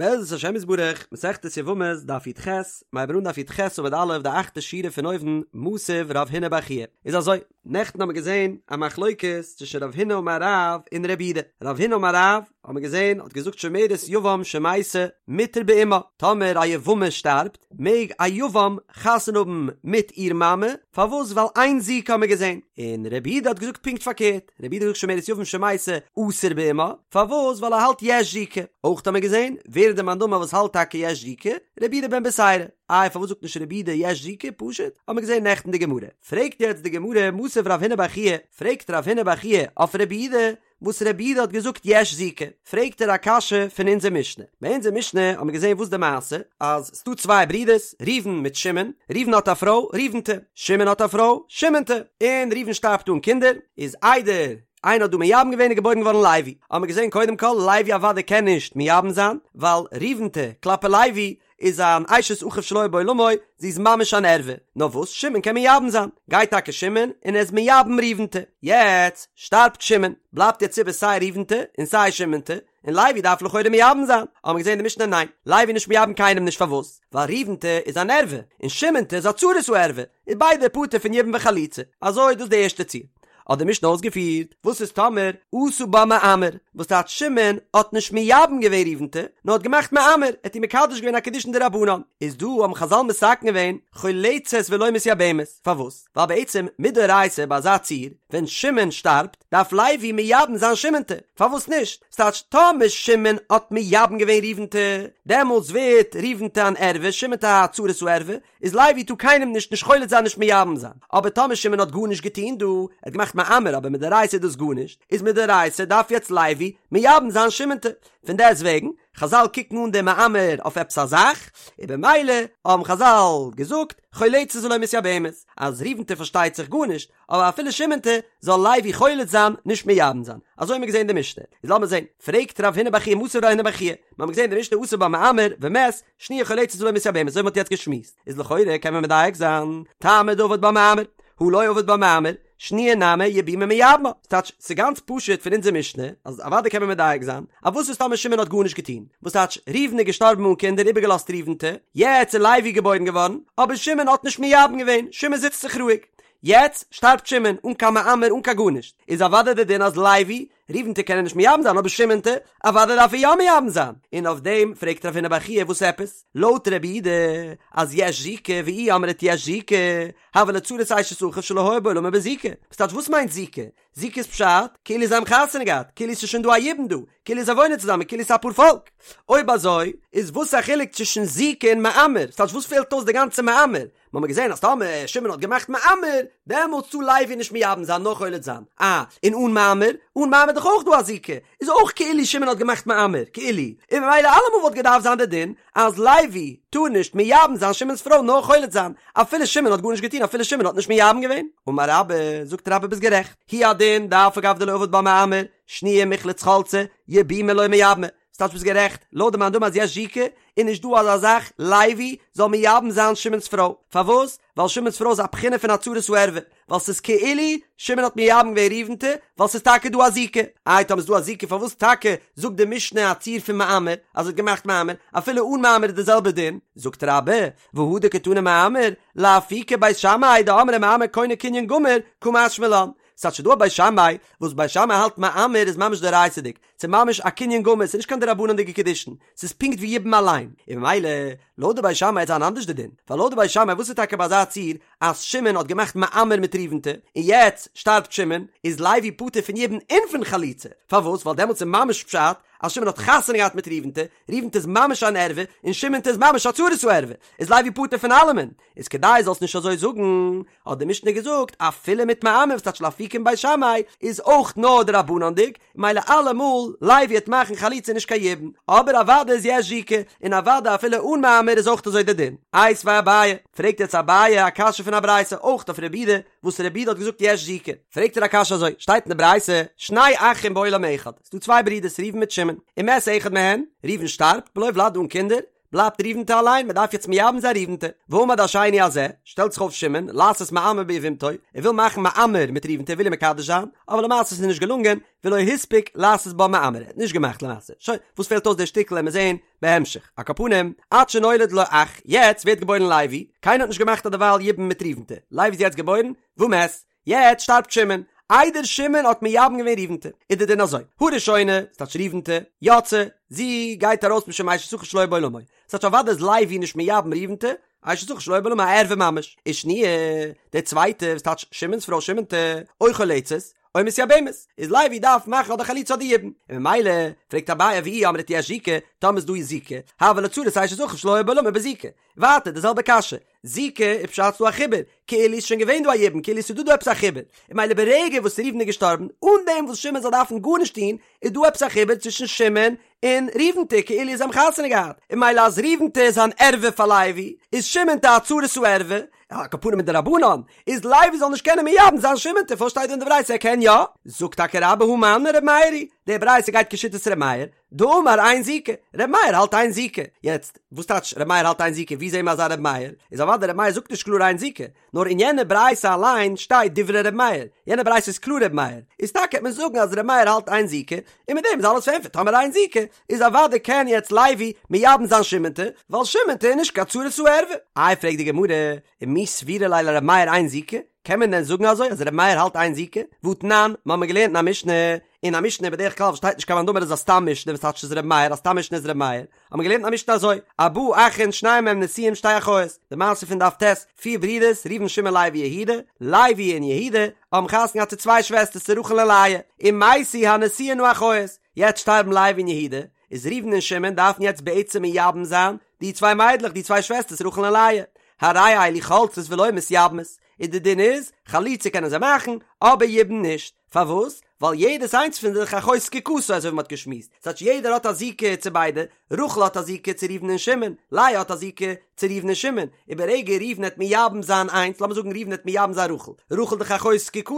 בעזרת השם יתברך, מסכת יבמות, דף י"ח, מ'הייבן אן דף י"ח עמוד א', די אכטע שורה פון אויבן, מתיב רב הונא בר חייא. איז אזוי, נעכטן האבן מיר געזען א מחלוקת צווישן רב הונא אמר רב און רבי יהודה. רב הונא אמר רב, האבן מיר געזען, האט געזאגט שומרת יבם שמתה מותר באמה, טאמער א יבמה שטארבט, מעג א יבם חתונה האבן מיט איר מאמע, פארוואס? ווייל אין זיקה האבן מיר געזען. און רבי יהודה האט געזאגט פונקט פארקערט. רבי יהודה האט געזאגט שומרת יבם שמתה אסור באמה, פארוואס? ווייל ער האלט יש זיקה. אויך האט מען געזען, ווער איז די מאן דאמר וואס האלט טאקע יש זיקה? רבי יהודה בן בתירא. איי פארוואס זאגט נישט רבי יהודה יש זיקה? פשוט, האט מען געזען נעכטן די גמרא. פרעגט יעצט די גמרא, מתיב רב הונא בר חייא, פרעגט רב הונא בר חייא אויף רבי יהודה, וואס רבי יהודה האט געזאגט יש זיקה, פרעגט ער א קשיא פון אונזער משנה. ביי אונזער משנה האט מען געזען וואס די מעשה, אז ס'דא צוויי ברידערס, ראובן מיט שמעון, ראובן האט א פרוי, ראובנ'טע, שמעון האט א פרוי, שמעונ'טע, און ראובן שטארבט אן קינדער, איז איידער איינער האט דא מייבם געווען איז געבוירן געווארן לוי, האט מען געזען קודם כל לוי אוודאי קען נישט מייבם זיין, ווייל ראובנ'טע כלפי לוי איז אן אשת אחיו שלא היה בעולמו, זי איז ממש אן ערווה, נאר וואס שמעון קען מייבם זיין, גייט טאקע שמעון און ער איז מייבם ראובנ'טע, יעצט שטארבט שמעון, בלייבט יעצט איבער סיי ראובנ'טע און סיי שמעונ'טע, און לוי דארף לכאורה מייבם זיין, האבן מיר געזען אין די משנה ניין, לוי נישט מייבם קיינעם נישט פארוואס? ווייל ראובנ'טע איז אן ערווה, און שמעונ'טע איז א צרת הערווה, איז ביידע פטור פון יבום וחליצה, אזוי דאס די ערשטע ציור. האט די משנה אויסגעפירט, וואס איז טאמער עשה בה מאמר, וואס טייטש שמעון האט נישט מייבם געווען ראובנ'טע, נאר האט געמאכט מאמר, ער האט איר מקדש געווען א קידושין דרבנן, איז דא האבן חזל מתקן געווען חולצת ולא מתייבמת, פארוואס? ווייל בעצם מדאורייתא ביי אזא ציור, ווען שמעון שטארבט, דארף לוי מייבם זיין שמעונ'טע, פארוואס נישט? ס'טייטש טאמער שמעון האט מייבם געווען ראובנ'טע, דעמאלטס ווערט ראובנ'טע אן ערווה, שמעונ'טע א צרת הערווה, איז לוי טאר קיינעם נישט נישט חולץ זיין נישט מייבם זיין, אבער טאמער שמעון האט גארנישט געטון דא, ער האט געמאכט מאמר אבער מדאורייתא איז דאס גארנישט, איז מדאורייתא דארף יעצט לוי מייבם זיין שמעונ'טע, פון דעסט וועגן, חזל קוקן אן דעם מאמר אויף עפעס א זאך, און במילא האבן חזל געזאגט חולצת ולא מתייבמת, אז ראובנ'טע פארשטייט זיך גארנישט, אבער אפילו שמעונ'טע זאל לוי חולץ זיין נישט מייבם זיין, אזוי האבן מיר געזען אין די משנה, איז לאמיר זען, פרעגט רב הונא בר חייא מתיב רב הונא בר חייא, מיר האבן געזען אין די משנה עשה בה מאמר ומת, שניה חולצת ולא מתייבמת, אזוי ווי מ'האט יעצט געשמועסט, איז לכאורה קען מען מדייק זיין, טעמא דעבד בה מאמר, הא לא עבד בה מאמר, שניה נמי יבומי מייבמה, ס'טייטש, ס'גאנץ פשוט פון אונזער משנה, אז אוודאי קען מען מדייק זיין, אז וואס איז טאמער שמעון האט גארנישט געטון, וואס טייטש, ראובן איז געשטארבן אן קינדער איבערגעלאזט ראובנ'טע, יעצט איז לוי געבוירן געווארן, אבער שמעון האט נישט מייבם געווען, שמעון זיצט זיך רואיג, יעצט שטארבט שמעון, אן קיין מאמר אן קיין גארנישט, איז אוודאי דער דין אז לוי ראובנ'טע קען ער נישט מייבם זיין אבער שמעונ'טע אוודאי דארף ער יא מייבם זיין, און אויף דעם פרעגט רב הונא בר חייא וואס עפעס? לויט רבי יהודה אז יש זיקה ואי אמרת יש זיקה הויא לה צרת אשת אחיו שלא היה בעולמו בזיקה, וואס טייטש וואס מיינט זיקה? זיקה איז פשט כאילו זיי האבן חתונה געהאט, כאילו ס'איז שוין דא א יבום דא, כאילו זיי וואוינען צוזאמען, כאילו ס'איז א פארפאלק. אויב אזוי איז וואס א חילוק צווישן זיקה און מאמר? ס'טייטש וואס פעלט אויס די גאנצע מאמר? מ'האמיר געזען אז טאמער שמעון האט געמאכט מאמר, דעמאלטס טאר לוי נישט מייבם זיין נאר חולץ זיין. אה, און אן מאמר? אן מאמר איז דאך אויך דא א זיקה, איז אויך כאילו שמעון האט געמאכט מאמר, כאילו. און ממילא אלעמאל וואלט געדארפט זיין די דין אז לוי טאר נישט מייבם זיין שמעון'ס פרוי נאר חולץ זיין, אפילו שמעון האט גארנישט געטון אפילו שמעון האט נישט מייבם געווען. אמר רבה, זאגט רבה ביסט גערעכט, הוא הדין דאף על גב דלא עבד בה מאמר, שניה מיחלץ חלצה, יבומי לא מייבמה. ס'טייטש ביסט גערעכט, לויט די מאן דאמר אז יש זיקה, איז נישט דא אזא זאך לוי זאל מייבם זיין שמעון'ס פרוי, פארוואס? ווייל שמעון'ס פרוי איז א בחינה פון א צרת הערווה, ווייל ס'איז כאילו שמעון האט מייבם געווען ראובנ'טע, ווייל ס'איז טאקע דא א זיקה. איי טאמער איז דא א זיקה פארוואס טאקע זאגט די משנה א ציור פון מאמר אז ער האט געמאכט מאמר, אפילו אן מאמר איז די זעלבע דין? זאגט רבה, והא דקתני מאמר, לאפוקי בית שמאי דאמרי מאמר קונה קנין גמור, קא משמע לן. ס'טייטש ס'דא א בית שמאי וואס בית שמאי האלט מאמר איז ממש דאורייתא'דיג, ס'איז ממש א קנין גמור, ס'איז נישט קיין דרבנן'דיגע קידושין, ס'איז פונקט ווי יבום אליין, און ממילא לויט די בית שמאי וועט זיין אנדערש די דין, ווייל לויט די בית שמאי וואס איז טאקע ביי אזא ציור אז שמעון האט געמאכט מאמר מיט ראובנ'טע, און יעצט שטארבט שמעון, איז לוי פטור פון יבום און פון חליצה, פארוואס? ווייל דעמאלטס איז ממש פשט אז שמעון האט חתונה געהאט מיט ראובנ'טע, ראובנ'טע איז ממש אן ערווה, און שמעונ'טע איז ממש א צרת הערווה, איז לוי פטור פון אלעמען, איז כדי זאלסט נישט אזוי זאגן, האט די משנה געזאגט, אפילו מיט מאמר וואס טייטש לאפוקי מבית שמאי, איז אויך נאר דרבנן'דיג, מילא אלעמאל לוי וועט מאכן חליצה נישט קיין יבום, אבער אוודאי איז יש זיקה, און אוודאי אפילו אן מאמר איז אויך אזוי די דין. איתיביה אביי, פרעגט יעצט אביי א קשיא פון א ברייתא אויך אויף רבי יהודה, וואס רבי יהודה האט געזאגט יש זיקה, פרעגט ער א קשיא אזוי, שטייט אין די ברייתא, שני אחים בעולם אחד, ס'דא צוויי ברידערס ראובן מיט שמעון, ומת אחד מהן, ראובן שטארבט, בלא ולד אן קינדער, בלייבט ראובנ'טע אליין, מען דארף יעצט מייבם זיין ראובנ'טע. ועמד השני הזה, שטעלט זיך אויף שמעון, לעשות מאמר ביבמתו, ער וויל מאכן מאמר מיט ראובנ'טע, ער וויל איר מקדש זיין, אבער למעשה איז עס נישט געלונגען, ולא הספיק לעשות בה מאמר, ער האט נישט געמאכט למעשה. שוין, וואס פעלט אויס די שטיקל עמיר זעהן בהמשך. על כל פנים, עד שנולד לו אח, יעצט ווערט געבוירן לוי, קיינער האט נישט געמאכט אדערווייל יבום מיט ראובנ'טע, לוי איז יעצט געבוירן, ומת, יעצט שטארבט שמעון, איידער שמעון האט מייבם געווען ראובנ'טע, איז די דין אזוי, הראשונה, ס'טייטש ראובנ'טע, יוצאה, זי גייט ארויס משום אשת אחיו שלא היה בעולמו, ס'טייטש אוודאי איז לוי נישט מייבם ראובנ'טע, אשת אחיו שלא היה בעולמו א ערווה ממש, ושניה, די צווייטע, וואס טייטש שמעון'ס פרוי שמעון'טע, או חולצת, או מתייבמת, איז לוי דארף מאכן אדער חליצה אדער יבום, און ממילא, פרעגט אביי ואי אמרת יש זיקה, טאמער איז דא זיקה, הויא לה צרת אשת אחיו שלא היה בעולמו בזיקה, ווייטער די זעלבע קשיא, זיקה איז פשט ס'דא א חיבור, כאילו איז שוין געווען דא א יבום, כאילו ס'איז דא דא עפעס א חיבור, און ממילא ברגע וואס ראובן איז געשטארבן, אן דעם וואס שמעון זאל דארפן גארנישט טון, איז דא עפעס א חיבור צווישן שמעון און ראובנ'טע, כאילו זיי האבן חתונה געהאט, און ממילא אז ראובנ'טע איז אן ערווה פאר לוי, איז שמעונ'טע א צרת הערווה, על כל פנים מדרבנן, איז לוי זאל נישט קענען מייבם זיין שמעונ'טע, פארוואס שטייט דא אין די ברייתא ער קען יא? זאגט טאקע רבה הא מני ר' מאיר היא, די ברייתא גייט כשיטת ר' מאיר, דאמר אין זיקה, ר' מאיר האלט אין זיקה, יעצט וואס טייטש ר' מאיר האלט אין זיקה, ווי זעהן מיר אזא ר' מאיר, איז אוודאי ר' מאיר זאגט נישט קלאר אין זיקה, נאר אין יענע ברייתא אליין שטייט דברי ר' מאיר, יענע ברייתא איז קלאר ר' מאיר, איז טאקע העט מען זאגן אז ר' מאיר האלט אין זיקה, און מיט דעם איז אלעס פארענטפערט, טאמער אין זיקה, איז אוודאי קען יעצט לוי מייבם זיין שמעונ'טע, ווייל שמעונ'טע איז נישט קיין צרת הערווה. איי פרעגט די גמרא, ומי סבירא ליה לר' מאיר אין זיקה, קען מען דען זאגן אזוי אז ר' מאיר האלט אין זיקה? והתנן, מ'האמיר געלערנט אין א משנה, אין א משנה בדרך כלל וואס שטייט נישט קיין מאן דאמר איז א סתם משנה וואס טייטש איז ר' מאיר א סתם משנה איז ר' מאיר, האט מען געלערנט א משנה אזוי, ארבעה אחין שניים מהם נשואים שתי אחיות, די מעשה פון דף ט', פיר ברידערס, ראובן שמעון לוי יהודה, לוי און יהודה, האבן חתונה געהאט צו צוויי שוועסטערס צו רחל און לאה, ומתו הנשואין האחיות, יעצט שטארבן לוי און יהודה, איז ראובן און שמעון דארפן יעצט בעצם מייבם זיין די צוויי מיידלעך די צוויי שוועסטערס רחל און לאה, הרי אלו חולצות ולא מתייבמות, און די דין איז, חליצה קענען זיי מאכן, אבער יבום נישט. פארוואס? ווייל יעדעס איינס פון זיך אחות זקוקתו אזוי ווי מ'האט געשמועסט, ס'טייטש יעדער האט א זיקה צו ביידע, רחל האט א זיקה צו ראובן און שמעון, לאה האט א זיקה צו ראובן און שמעון, און ברגע ראובן העט מייבם זיין איינס, לאמיר זאגן ראובן העט מייבם זיין רחל, רחל דאך אחות זקוקתו,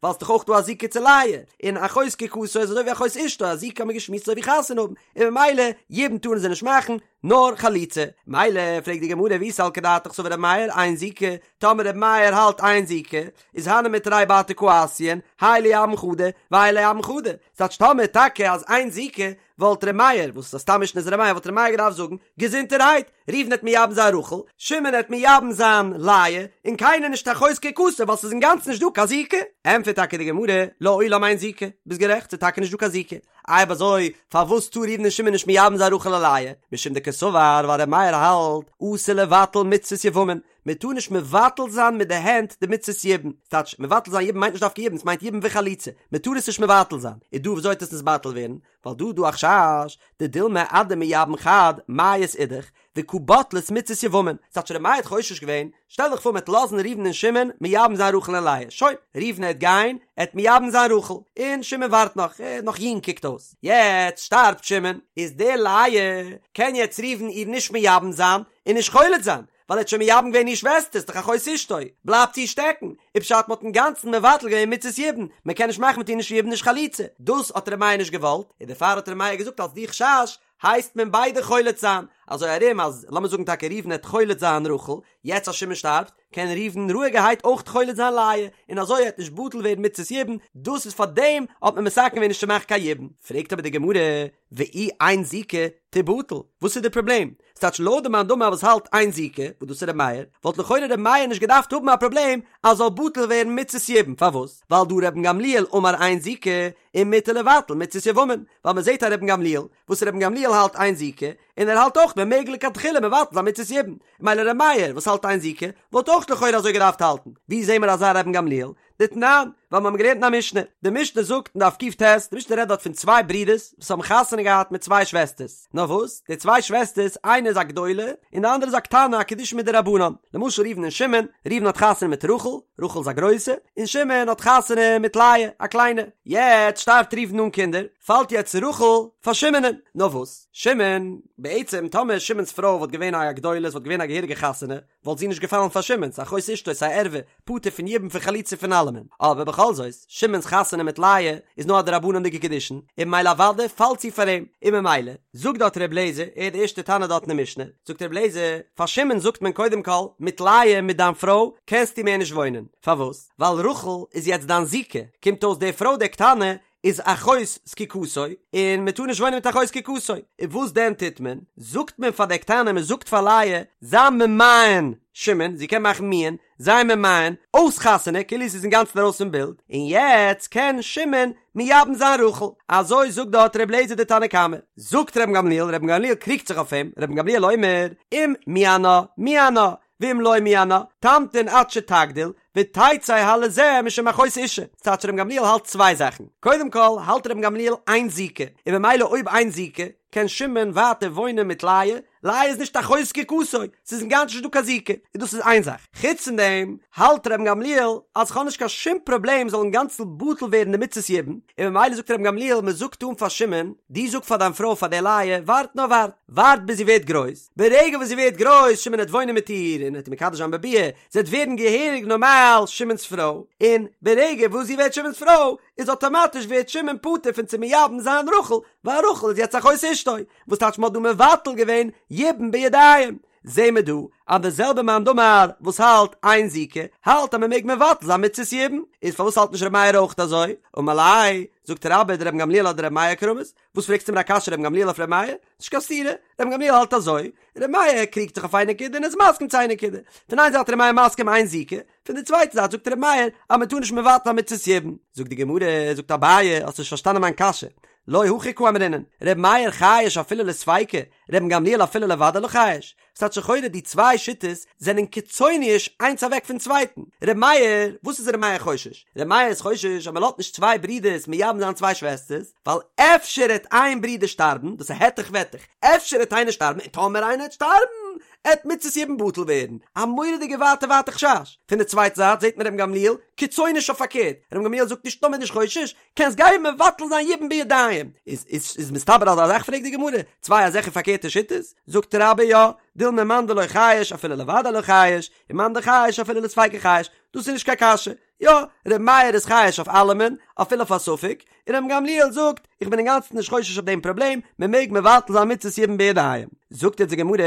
ווייל ס'דאך אויך דא א זיקה צו לאה, און אחות זקוקתו איז אזוי ווי אחות אשתו, א זיקה האט מען געשמועסט אזוי ווי חתונה האבן, און ממילא יבום טארן זיי נישט מאכן, נאר חליצה. מילא פרעגט די גמרא ואי סלקא דעתך סבר ר' מאיר אין זיקה, טאמער ר' מאיר האלט אין זיקה, איז הני מיתרי בתר קא אתיין, האי ליבם חדא, והאי ליבם חדא. ס'טייטש טאמער טאקע אז אין זיקה, וואלט ר' מאיר, וואס איז א סתם משנה איז ר' מאיר, וואלט ר' מאיר געדארפט זאגן, געזונטערהייט, ראובן העט מייבם זיין רחל, שמעון העט מייבם זיין לאה, און קיינער נישט אחות זקוקתו ווייל ס'איז אינגאנצן נישט דא קיין זיקה. ענטפערט טאקע די גמרא, לעולם אין זיקה, ביסט גערעכט, ס'איז טאקע נישט דא קיין זיקה. אויב אזוי, פארוואס טאר ראובן און שמעון נישט מייבם זיין רחל און לאה? משום דקסבר, ווייל ר' מאיר האלט, אסור לבטל מצוות יבמין, מען טאר נישט מבטל זיין מיט די הענט די מצות יבום, ס'טייטש, מבטל זיין יבום מיינט נישט דווקא יבום, ס'מיינט יבום וחליצה, מען טאר עס נישט מבטל זיין, איז דא וויאזוי וועט עס נתבטל ווערן? ווייל דא איז דא א חשש, דדילמא אדמייבם חד מיית אידך, וקא בטלת מצות יבמין, ס'טייטש ר' מאיר האט חושש געווען, שטעל דיך פאר מ'עט לאזן ראובן און שמעון מייבם זיין רחל און לאה, שוין, ראובן העט גיין, ער העט מייבם זיין רחל, און שמעון ווארט נאך, ער איז נאך יונג קוקט אויס, יעצט שטארבט שמעון, איז די לאה, קען יעצט ראובן איר נישט מייבם זיין, און נישט חולץ זיין, ווייל ער האט שוין מייבם געווען איר שוועסטער, ס'דאך אחות אשתו, בלייבט זי שטעקן, איז פשט מ'האט אינגאנצן מבטל געווען מצות יבום, מ'קען נישט מאכן מיט איר נישט יבום נישט חליצה, דאס האט ר' מאיר נישט געוואלט, און דערפאר האט ר' מאיר געזאגט אלס די חשש, הייסט מען ביידע חולץ זיין, אזוי ארום אז לאמיר זאגן טאקע ראובן העט חולץ זיין רחל, יעצט אז שמעון שטארבט, קען ראובן רואיגערהייט אויך חולץ זיין לאה, און אזוי העט נישט בטל ווערן מצות יבום, דאס איז פאר דעם האט מען מתקן געווען נישט צו מאכן קיין יבום. פרעגט אבער די גמרא, ואי אין זיקה תיבטל, וואס איז די פראבלעם? ס'טייטש לויט די מאן דאמר וואס האלט אין זיקה, וואס דאס איז ר' מאיר, וואלט לכאורה ר' מאיר נישט געדארפט האבן א פראבלעם אז זאל בטל ווערן מצות יבום, פארוואס? ווייל דהא רבן גמליאל אמר אין זיקה, ומותר לבטל מצות יבמין, ווייל מען זעט א רבן גמליאל, וואס רבן גמליאל האלט אין זיקה, און ער האלט אויך מען מעג לכתחילה מבטל זיין מצות יבום, מילא ר' מאיר וואס האלט אין זיקה, וואלט אויך לכאורה אזוי געדארפט האלטן, ווי זעהן מיר אזא רבן גמליאל? דתנן, ווייל מיר האבן געלערנט אין א משנה, די משנה זאגט אין דף קט, די משנה רעדט דארט פון צוויי ברידערס וואס האבן חתונה געהאט מיט צוויי שוועסטערס, נאר וואס, די צוויי שוועסטערס, איינע איז א גדולה, און די אנדערע איז א קטנה, א קידושין מדרבנן, למשל ראובן און שמעון, ראובן האט חתונה מיט רחל, רחל איז א גרויסע, און שמעון האט חתונה מיט לאה, א קליינע. יעצט שטארבט ראובן אן קינדער, פאלט יעצט רחל פאר שמעונ'ען. נאר וואס, שמעון, בעצם טאמער שמעון'ס פרוי וואלט געווען א גדולה, עס וואלט געווען א געהעריגע חתונה, וואלט זי נישט געפאלן פאר שמעון, ס'איז אחות אשתו, ס'איז א ערווה, פטור פון יבום פון חליצה פון אלעמען. אבער בכל בכל זאת, שמעון'ס חתונה מיט לאה איז נאר א דרבנן'דיגע קידושין, און ממילא אוודאי פאלט זי פאר אים, און ממילא, זאגט דארט ר' לעזער, ער איז די ערשטע תנא דארט אין די משנה, זאגט ר' לעזער, פאר שמעון זאגט מען קודם כל, מיט לאה מיט דיין פרוי קענסטו מער נישט וואוינען, פארוואס? ווייל רחל איז יעצט דיין זיקה, קומט אויס די פרוי די קטנה איז אחות זקוקתו, און מען טאר נישט וואוינען מיט אחות זקוקתו, און וואס דען טוט מען? זאגט מען פאר די קטנה, מען זאגט פאר לאה, זיי ממאן שמעון, זי קען מאכן מיאון, זיי ממאן, אויס חתונה, כאילו ס'איז אינגאנצן ארויס פון בילד, און יעצט קען שמעון מייבם זיין רחל, אזוי זאגט דארט ר' אליעזר די תנא קמא. זאגט רבן גמליאל, רבן גמליאל קריגט זיך אויף אים, רבן גמליאל אומר, אם מיאנה, מיאנה, ואם לא מיאנה, תמתין עד שתגדיל, ותצא הלזה משום אחות אשה. ס'טייטש רבן גמליאל האלט צוויי זאכן. קודם כל, האלט רבן גמליאל אין זיקה, און ממילא אויב אין זיקה, קען שמעון ווייטער וואוינען מיט לאה, לאה איז נישט אחות זקוקתו, ס'איז אינגאנצן נישט דא קיין זיקה, און דאס איז איין זאך. חוץ פון דעם, האלט רבן גמליאל אז כ'האב נישט קיין שום פראבלעם זאל אינגאנצן בטל ווערן די מצות יבום, און ממילא זאגט רבן גמליאל מ'זאגט אן פאר שמעון, דו זאג פאר דיין פרוי פאר די לאה, ווארט נאר ווארט, ווארט ביז זי ווערט גרויס, ברגע וואס זי ווערט גרויס, שמעון העט וואוינען מיט איר און העט איר מקדש זיין בביאה, זי העט ווערן געהעריג נארמאל שמעון'ס פרוי, און ברגע וואס זי ווערט שמעון'ס פרוי, איז אטאמאטיש ווערט שמעון פטור פון צו מייבם זיין רחל, ווייל רחל איז יעצט אחות אשתו, וואס טייטש מ'האט דא מבטל געווען יבום בידיים. זעהן מיר דא אז די זעלבע מאן דאמר וואס האלט אין זיקה, האלט אז מ'מעג מבטל זיין מצות יבום, איז פארוואס האלט נישט ר' מאיר אויך אזוי? אמר ליה, זאגט רבה דרבן גמליאל אדר' מאיר קרמית, וואס פרעגסטו מיר א קשיא רבן גמליאל אויף ר' מאיר? נישט קיין סתירה, רבן גמליאל האלט אזוי, ר' מאיר קריגט זיך אויף איין נקודה און איז מסכים צו איין נקודה. פון איין זייט ר' מאיר מסכים אין זיקה, פון די צווייטע זייט זאגט ר' מאיר אז מען טאר נישט מבטל זיין מצות יבום. זאגט די גמרא, זאגט אביי, האסט נישט פארשטאנען מיין קשיא, לא הכי קאמרינן, ר' מאיר חייש אפילו לספיקא, רבן גמליאל אפילו לוודאי לא חייש. ס'טייטש לכאורה די צוויי שיטות זענען קיצוניש איינס אוועק פון צווייטן. ר' מאיר, וואס איז ר' מאיר חושש? ר' מאיר איז חושש אז מ'לאזט נישט צוויי ברידערס מייבם זיין צוויי שוועסטערס, ווייל אפשר העט איין ברודער שטארבן, דאס איז העטעך וועטעך, אפשר העט איינער שטארבן, און טאמער איינער העט שטארבן, העט מצות יבום בטל ווערן. א מורא'דיגע ווייטע ווייטע חשש. פון די צווייטע זייט זעט מען רבן גמליאל קיצוניש אויף פארקערט, רבן גמליאל זאגט נישט נאר מ'איז נישט חושש, קענסט גיין מבטל זיין יבום בידיים, איז איז איז מסתבר אזא זאך פרעגט די גמרא, צוויי אזעלכע פארקערטע שיטות, זאגט רבה יא, דילמא מאן דלא חייש אפילו לוודאי לא חייש, און מאן דחייש אפילו לספיקא חייש, דאס איז נישט קיין קשיא, יא, ר' מאיר איז חייש אויף אלעמען, אפילו אויף א ספק, און רבן גמליאל זאגט, איך בין אינגאנצן נישט חושש אויף דעם פראבלעם, מען מעג מבטל זיין מצות יבום בידיים. זאגט יעצט די גמרא,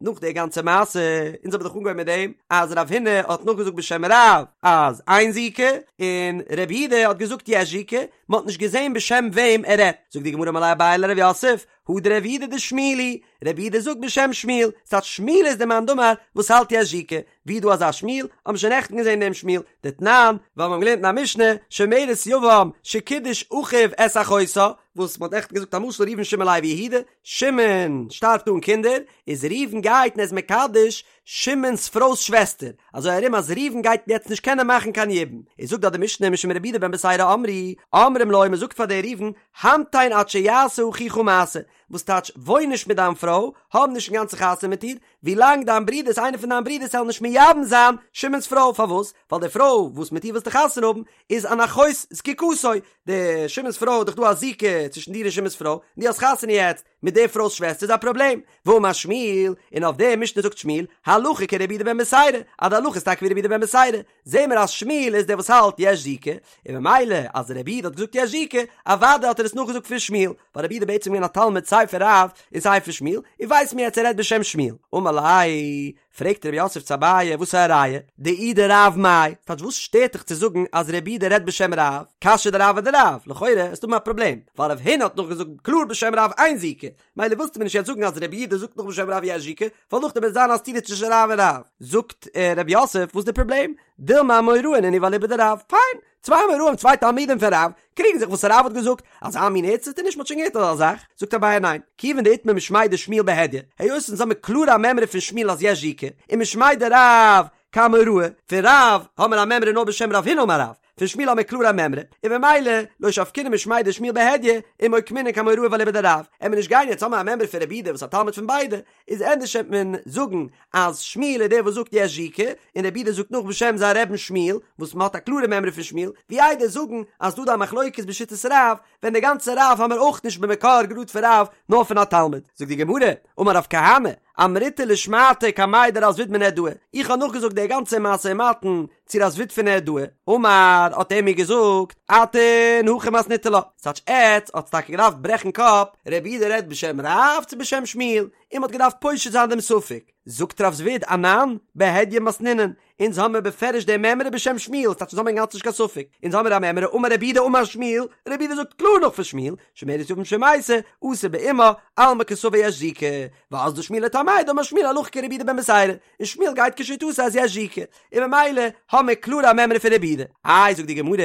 נאך די גאנצע מעשה, אונז האבן דאך אנגעהויבן מיט דעם אז רב הונא האט נאכגעזאגט בשם רב אז אין זיקה, און רב יהודה האט געזאגט יש זיקה, מען האט נישט געזען בשם וועם ער רעדט. זאגט די גמרא אמר ליה אביי לרב יוסף, הא דרב יהודה דשמואל היא, רב יהודה זאגט בשם שמואל, ס'טייטש שמואל איז דער מאן דאמר וואס האלט יש זיקה, ווי איז דא אזא שמואל? האבן מיר שוין נעכטן געזען דעם שמואל, דתנן, ווייל מיר האבן געלערנט אין א משנה, שומרת יבם שקידש אחיו את אחותה, וואס מ'האט נעכטן געזאגט א משל ראובן שמעון לוי יהודה, שמעון שטארבט אן קינדער, איז ראובן גייט און ער איז מקדש שמעון'ס פרוי'ס שוועסטער, אזוי ארום אז ראובן גייט יעצט נישט קענען מאכן קיין יבום, איז זאגט דארט די משנה משום רבי יהודה בן בתירא אמרו, אומרים לו מ'זאגט פאר די ראובן, המתן עד שיעשה אחיך מעשה, וואס טייטש וואוין נישט מיט דיין פרוי, האב נישט אינגאנצן חתונה מיט איר, ווילאנג דיין ברודערס איינער פון דיין ברודערס זאל נישט מייבם זיין שמעון'ס פרוי, פארוואס? ווייל די פרוי וואס מיט איר ווילסטו חתונה האבן איז אן אחות זקוקתו, די שמעון'ס פרוי איז דאך דא א זיקה צווישן דיר און שמעון'ס פרוי, און דו האסט חתונה יעצט מיט די פרוי'ס שוועסטער איז א פראבלעם. ואמר שמואל, און אויף די משנה זאגט שמואל, הלכה כרבי יהודה בן בתירא, אז די הלכה איז טאקע ווי רבי יהודה בן בתירא, זעהן מיר אז שמואל איז דער וואס האלט יש זיקה, און ממילא אז רבי יהודה האט געזאגט יש זיקה, אוודאי האט ער עס נאכגעזאגט פון שמואל, ווייל רבי יהודה איז בעצם געווען א תלמיד סיי פון רב און סיי פון שמואל, און ווייסט מיר יעצט ער רעדט בשם שמואל. אמר ליה, פרעגט רב יוסף צו אביי, וואס איז א ראיה? דאי דרב מאי, טייטש וואס שטערט דיך צו זאגן אז רבי יהודה רעדט בשם רב? קשיא דרב אדרב, לכאורה וועסטו האבן א פראבלעם, ווייל רב הונא האט נאכגעזאגט קלאר בשם רב אין זיקה, מילא ווילסטו מיר נישט יעצט זאגן אז רבי יהודה זאגט נאך בשם רב יש זיקה, ווייל נאכדעם וועט זיין א סתירה צווישן רב און רב. זאגט רב יוסף, וואס איז די פראבלעם? דילמא אמוראי נינהו ואליבא דרב, פיין, צוויי אמוראים צוויי תלמידים פון רב, קריגן זיך וואס רב האט געזאגט, אזא מין ערדציטערניש מ'האט שוין געהערט אזא זאך, זאגט אביי ניין, כיוון דאיתמר משמיה דשמואל בהדיא, היות אונז האמיר קלאר א מימרא פון שמואל אז יש זיקה, ומשמיה דרב כאמוראי, פון רב האמיר א מימרא נאר בשם רב הונא אמר רב, פון שמואל האמיר קלאר א מימרא, און ממילא לא שבקינן משמיה דשמואל בהדיא, ומוקמינן כאמוראי ואליבא דרב, עמיר נישט גיין יעצט האמיר א מימרא פון רבי יהודה וואס א תלמיד פון ביידע, איז ענדערש וועט מען זאגן אז שמואל איז דער וואס זאגט יש זיקה, און רבי יהודה זאגט נאך בשם זיין רבי'ן שמואל, וואס מען האט א קלארע מימרא פון שמואל, ווי איידער זאגן אז דא דא א מחלוקת בשיטת רב, ווען די גאנצע רב האמיר אויך נישט במקור גראד פון רב, נאר פון א תלמיד. זאגט די גמרא, אמר רב כהנא, אמריתה לשמעתא קמיה דרב זביד מנהרדעא, איך האב נאכגעזאגט די גאנצע משא ומתן. צו רב זביד פון נהרדעא, אמר, האט ער מיר געזאגט, אתון הכי מתניתו לה, ס'טייטש עטץ האטס טאקע געדארפט ברעכן קאפ, רבי יהודה רעדט בשם רב צו בשם שמואל, און מ'האט געדארפט פושט זיין דעם ספק. זאגט רב זביד, אנן, בהדיא מתנינן, אונז האמיר בפירוש די מימרא בשם שמואל, ס'טייטש אונז האמיר אינגאנצן נישט קיין ספק, אונז האמיר א מימרא אמר רבי יהודה אמר שמואל, רבי יהודה זאגט קלאר נאך פון שמואל, שומרת יבם שמתה, אסור באמה, אלמא קסבר יש זיקה, ואזדא שמואל לטעמיה דאמר שמואל הלכה כרבי יהודה בן בתירא, און שמואל גייט כשיטתו אז יש זיקה, און ממילא האמיר קלאר א מימרא פון רבי יהודה. איי זאגט די גמרא,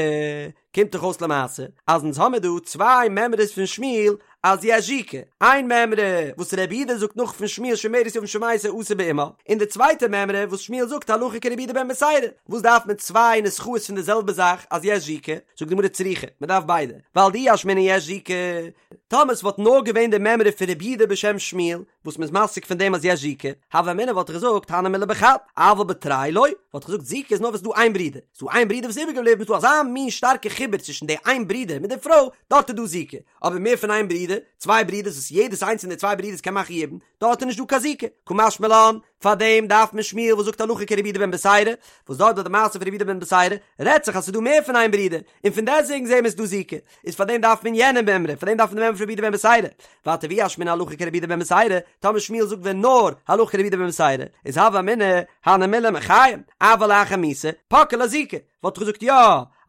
קומט דאך אויס למעשה אז אונז האמיר דא צוויי מימרות פון שמואל אז יש זיקה, איין מימרא וואס רבי יהודה זאגט נאך פון שמואל שומרת יבם שמתה אסור באמה, און די צווייטע מימרא וואס שמואל זאגט הלכה כרבי יהודה בן בתירא, וואס דארף מען צוויי נוסחאות פון די זעלבע זאך אז יש זיקה? זאגט די גמרא צריכא, מען דארף ביידע, ווייל דאי אשמעינן יש זיקה, טאמער ס'וואלט נאר געווען די מימרא פון רבי יהודה בשם שמואל, וואס מ'איז מסיק פון דעם אז יש זיקה, הוה אמינא וואלט איך געזאגט הני מילי בחד, אבל בתרי לא, וואלט איך געזאגט זיקה איז נאר ווען ס'איז דא איין ברודער, ס'איז דא איין ברודער וואס איז איבערגעבליבן, ס'איז דא אזא מין שטארקע חיבור צווישן די איין ברודער מיט די פרוי, דארט איז דא זיקה, אבער מער פון איין ברודער, צוויי ברודערס וואס יעדעס איינס פון די צוויי ברודערס קען מאכן יבום, דארט איז נישט דא קיין זיקה, קא משמע לן, פארדעם דארף מען שמואל וואס זאגט הלכה כרבי יהודה בן בתירא, וואס דארט ביי די מעשה פון רבי יהודה בן בתירא רעדט זיך אז ס'איז דא מער פון איין ברודער, און פון דעסטוועגן זעהן מיר ס'איז דא זיקה, איז פארדעם דארף מען יענע מימרא, פארדעם דארף מען די מימרא פון רבי יהודה בן בתירא, ווייטער ואי אשמעינן הלכה כרבי יהודה בן בתירא, טאמער שמואל זאגט ווען נאר הלכה כרבי יהודה בן בתירא, איז הוה אמינא הני מילי מחיים, אבל לאחר מיתה, פקעה לה זיקה, וואלט איך געזאגט יא,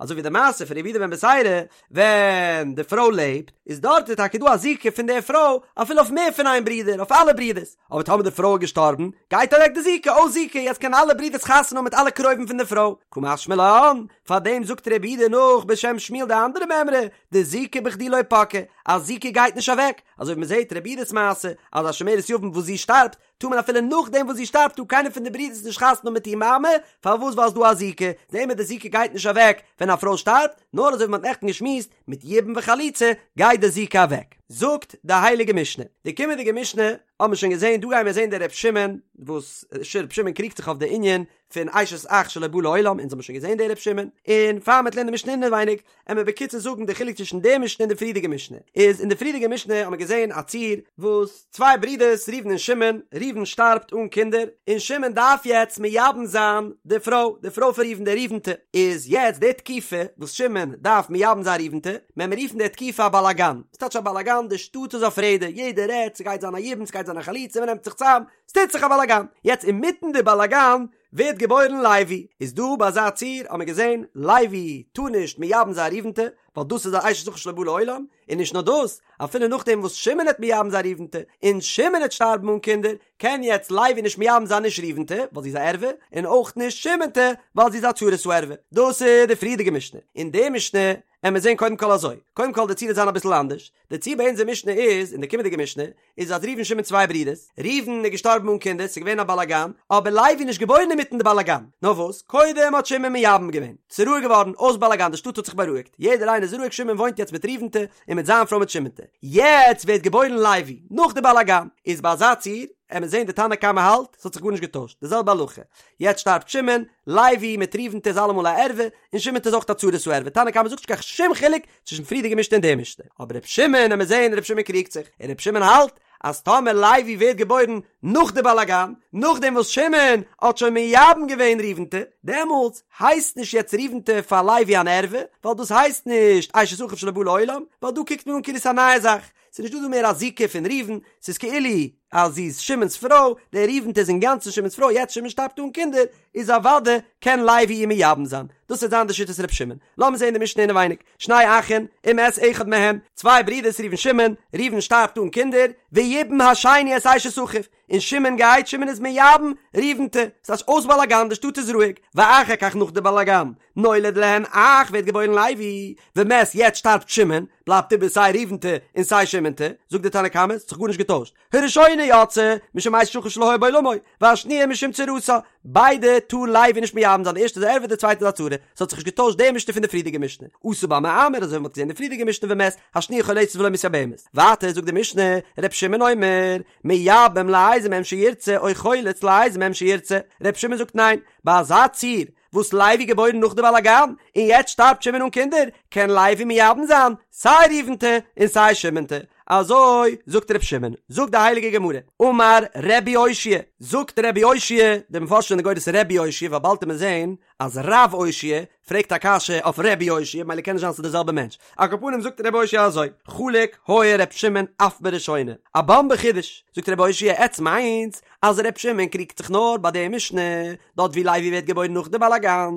אזוי ווי די מעשה פון רבי יהודה בן בתירא, ווען די פרוי לעבט, איז דארט איז טאקע דא א זיקה פון די פרוי אפילו אויף מער פון איין ברודער, אויף אלע ברודערס, אבער טאמער די פרוי איז געשטארבן, גייט אוועק די זיקה, אויס זיקה, יעצט קענען אלע ברודערס חתונה האבן מיט אלע קרובים פון די פרוי, קא משמע לן, פארדעם זאגט רבי יהודה נאך בשם שמואל די אנדערע מימרא, דזיקה בכדי לא פקעה, אז זיקה גייט נישט אוועק, אזוי ווי מען זעט רבי יהודה'ס מעשה, אז א שומרת יבם וואס זי שטארבט, טאר מען אפילו נאכדעם וואס זי שטארבט טאר קיינער פון די ברידערס נישט חתונה האבן מיט איר מאמע, פארוואס ווייל ס'דא א זיקה, זעהן מיר די זיקה גייט נישט אוועק ווען א פרוי שטארבט, נאר אזוי ווי מ'האט נעכטן געשמועסט, מיט יבום וחליצה גייט די זיקה אוועק. זאגט די הייליגע משנה, די קומענדיגע משנה האבן מיר שוין געזעהן, דא גייען מיר זעהן די ר' שמעון, וואס ר' שמעון קריגט זיך אויף די ענין פון אשת אח שלא בא לעולם, אונז האבן שוין געזעהן די ר' שמעון, און פאר מ'וועט לערנען די משנה אינעווייניג, עמיר בקיצור זאגן די חילוק צווישן די משנה און די פריערדיגע משנה, איז אין די פריערדיגע משנה האבן מיר געזען א ציור וואס צוויי ברידערס ראובן און שמעון, ראובן שטארבט אן קינדער, און שמעון דארף יעצט מייבם זיין די פרוי, די פרוי פון ראובן די ראובנ'טע, איז יעצט די תקופה וואס שמעון דארף מייבם זיין ראובנ'טע, מען מיר רופן די תקופה א באלאגאן, ס'טייטש א באלאגאן, די שטאט איז אויף רעדער, יעדער רעדט, ס'גייט זיין א יבום, ס'גייט זיין א חליצה, מ'נעמט זיך צאם, ס'טוט זיך א באלאגאן, יעצט אינמיטן די באלאגאן ווערט געבוירן לוי, איז דא ביי אזא ציור האט מען געזען לוי טאר נישט מייבם זיין ראובנ'טע, ווייל דאס איז א אשת אחיו שלא בא לעולם, און נישט נאר דאס, אפילו נאכדעם וואס שמעון העט מייבם זיין ראובנ'טע, און שמעון העט שטארבן אן קינדער, קען יעצט לוי נישט מייבם זיין נישט ראובנ'טע, ווייל זי איז א ערווה, און אויך נישט שמעונ'טע, ווייל זי איז א צרת הערווה. דאס איז די פריערדיגע משנה. אין די משנה עמיר זען קודם כל אזוי, קודם כל די ציור וועט זיין אביסל אנדערש, די ציור ביי אונזער משנה איז, אין די קומענדיגע משנה, איז אז ראובן שמעון צוויי ברידערס, ראובן איז געשטארבן אן קינדער, ס'איז געווען א באלאגאן, אבער לוי איז נישט געבוירן אינמיטן די באלאגאן, נאר וואס, קודם האט שמעון מייבם געווען, ס'איז רואיג געווארן, אויס באלאגאן, די שטאט האט זיך בארואיגט, יעדער איינער איז רואיג, שמעון וואוינט יעצט מיט ראובנ'טע, און מיט זיין פרוי מיט שמעונ'טע, יעצט ווערט געבוירן לוי, נאך די באלאגאן, איז ביי אזא ציור, עמיר זען די תנא קמא האלט, ס'האט זיך גארנישט געטוישט, די זעלבע הלכה, יעצט שטארבט שמעון, לוי מיט ראובנ'טע איז אלעמאל א ערווה, און שמעונ'טע איז אויך א צרת הערווה, תנא קמא זאגט נישט קיין שום חילוק צווישן פריערדיגע משנה און די משנה, אבער ר' שמעון, עמיר זעהן ר' שמעון קריגט זיך, און ר' שמעון האלט אז טאמער לוי ווערט געבוירן נאך די באלאגאן, נאכדעם וואס שמעון האט שוין מייבם געווען ראובנ'טע, דעמאלטס הייסט נישט יעצט ראובנ'טע פאר לוי אן ערווה, ווייל דאס הייסט נישט אשת אחיו שלא בא לעולם, ווייל דא קוקט מען אן כאילו ס'איז א נייע זאך, ס'איז נישט דא דא מער א זיקה פון ראובן, ס'איז כאילו אז זי איז שמעון'ס פרוי, די ראובנ'טע איז אינגאנצן שמעון'ס פרוי, יעצט שמעון שטארבט אן קינדער, איז אוודאי קען לוי איר מייבם זיין. דאס וועט זיין די שיטת ר' שמעון. לאמיר זען די משנה אינעווייניג, שני אחין, ומת אחד מהם, צוויי ברידערס ראובן שמעון, ראובן שטארבט אן קינדער, ויבם השני את אשת אחיו, און שמעון גייט, שמעון איז מייבם ראובנ'טע, ס'איז אויס באלאגאן, די שטאט איז רואיג, ואחר כך נאך די באלאגאן, נולד להן אח ווערט געבוירן לוי, ומת יעצט שטארבט שמעון, בלייבט איבער סיי ראובנ'טע און סיי שמעונ'טע, זאגט די תנא קמא, ס'האט זיך גארנישט געטוישט, הראשונה יוצאה, משום אשת אחיו שלא היה בעולמו, והשניה משום צרתה, ביידע טאר לוי נישט מייבם זיין, די ערשטע איז א ערווה די צווייטע איז א צרה, ס'האט זיך נישט געטוישט די משנה פון די פריערדיגע משנה, עשה בה מאמר אזוי ווי מ'האט געזען די פריערדיגע משנה ומת, השניה חולצת ולא מתייבמת, ווייטער זאגט די משנה, ר' שמעון אומר, מייבם לאיזה מהם שירצה או חולץ לאיזה מהם שירצה, ר' שמעון זאגט ניין, ביי אזא ציור וואס לוי געבוירן נאך די באלאגאן? און יעצט שטארבט שמעון אן קינדער, קען לוי מייבם זיין סיי ראובנ'טע און סיי שמעונ'טע, אזוי זאגט ר' שמעון, זאגט די הייליגע גמרא, אמר רבי אושעיא, זאגט רבי אושעיא, די מפרשים זענען גורס רבי אושעיא ווייל באלד וועט מען זען אז רב אושעיא פרעגט א קשיא אויף רבי אושעיא ממילא קען נישט זיין ס'איז די זעלבע מענטש, על כל פנים זאגט רבי אושעיא אזוי, חלוק היה ר' שמעון אף בראשונה, א באמבע חידוש, זאגט רבי אושעיא עטס מיינטס אז ר' שמעון קריגט זיך נאר ביי די משנה דארט ווי לוי ווערט געבוירן נאך די באלאגאן,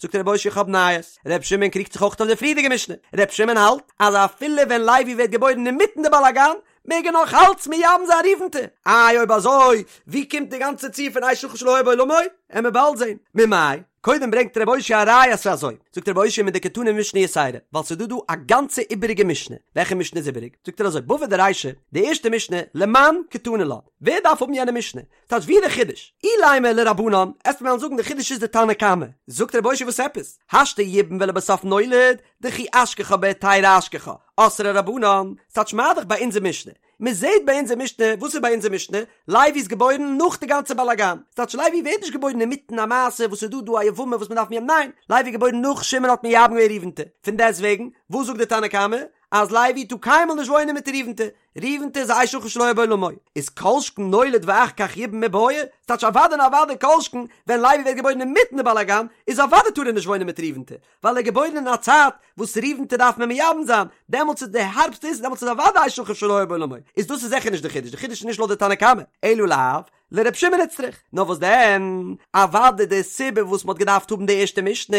זאגט רבי אושעיא איך האב נייעס, ר' שמעון קריגט זיך אויך אויף די פריערדיגע משנה, ר' שמעון האלט אז אפילו ווען לוי ווערט געבוירן אינמיטן די באלאגאן מעג ער נאך אלץ מייבם זיין ראובנ'טע, איי אויב אזוי ווי קומט די גאנצע ציור פון אשת אחיו שלא היה בעולמו? עמיר באלד זען. ממאי? קודם ברענגט רבי אושעיא א ראיה אז ס'איז אזוי, זאגט רבי אושעיא מדקתני משנה יתירה, ווייל ס'איז דא דא א גאנצע איבעריגע משנה, וועלכע משנה איז איבעריג? זאגט ער אזוי, בבא דרישא, די ערשטע משנה, למאן קתני לה, ווער דארף האבן יענע משנה? טייטש ווי די חידוש? אילימא לרבנן, עסט מיר וועלן זאגן די חידוש איז די תנא קמא, זאגט רבי אושעיא וואס עפעס? השתא ייבם ולבסוף נולד, דכי אשכחה בהיתרא אשכחה, אסרי רבנן, ס'טייטש מה דאך ביי אונזער משנה, מען זעט ביי אונזער משנה, וואס איז ביי אונזער משנה? לוי איז געבוירן נאך די גאנצע באלאגאן, ס'טייטש לוי ווערט נישט געבוירן אינמיטן א מעשה וואס איז דא דא א יבמה וואס מען דארף מייבם, ניין, לוי איז געבוירן נאך שמעון האט מייבם געווען ראובנ'טע, פון דעסטוועגן, וואס זאגט די תנא קמא? אז לוי טאר קיינמאל נישט וואוינען מיט ראובנ'טע, ראובנ'טע איז א אשת אחיו שלא היה בעולמו, איז כל שכן נולד ואחר כך ייבם מיבעיא, ס'טייטש אוודאי און אוודאי כל שכן ווען לוי ווערט געבוירן אינמיטן די באלאגאן, איז אוודאי טאר ער נישט וואוינען מיט ראובנ'טע, ווייל ער איז געבוירן אין א צייט וואס ראובנ'טע דארף מען מייבם זיין, דעמאלטס איז די הארבסטע איז דעמאלטס איז אוודאי אשת אחיו שלא היה בעולמו, איז דאס איז זיכער נישט די חידוש, די חידוש איז נישט לויט די תנא קמא, אלא לאו, לר' שמעון איצטריך, נאר וואס דען, אוודאי די סיבה וואס מ'האט געדארפט האבן די ערשטע משנה,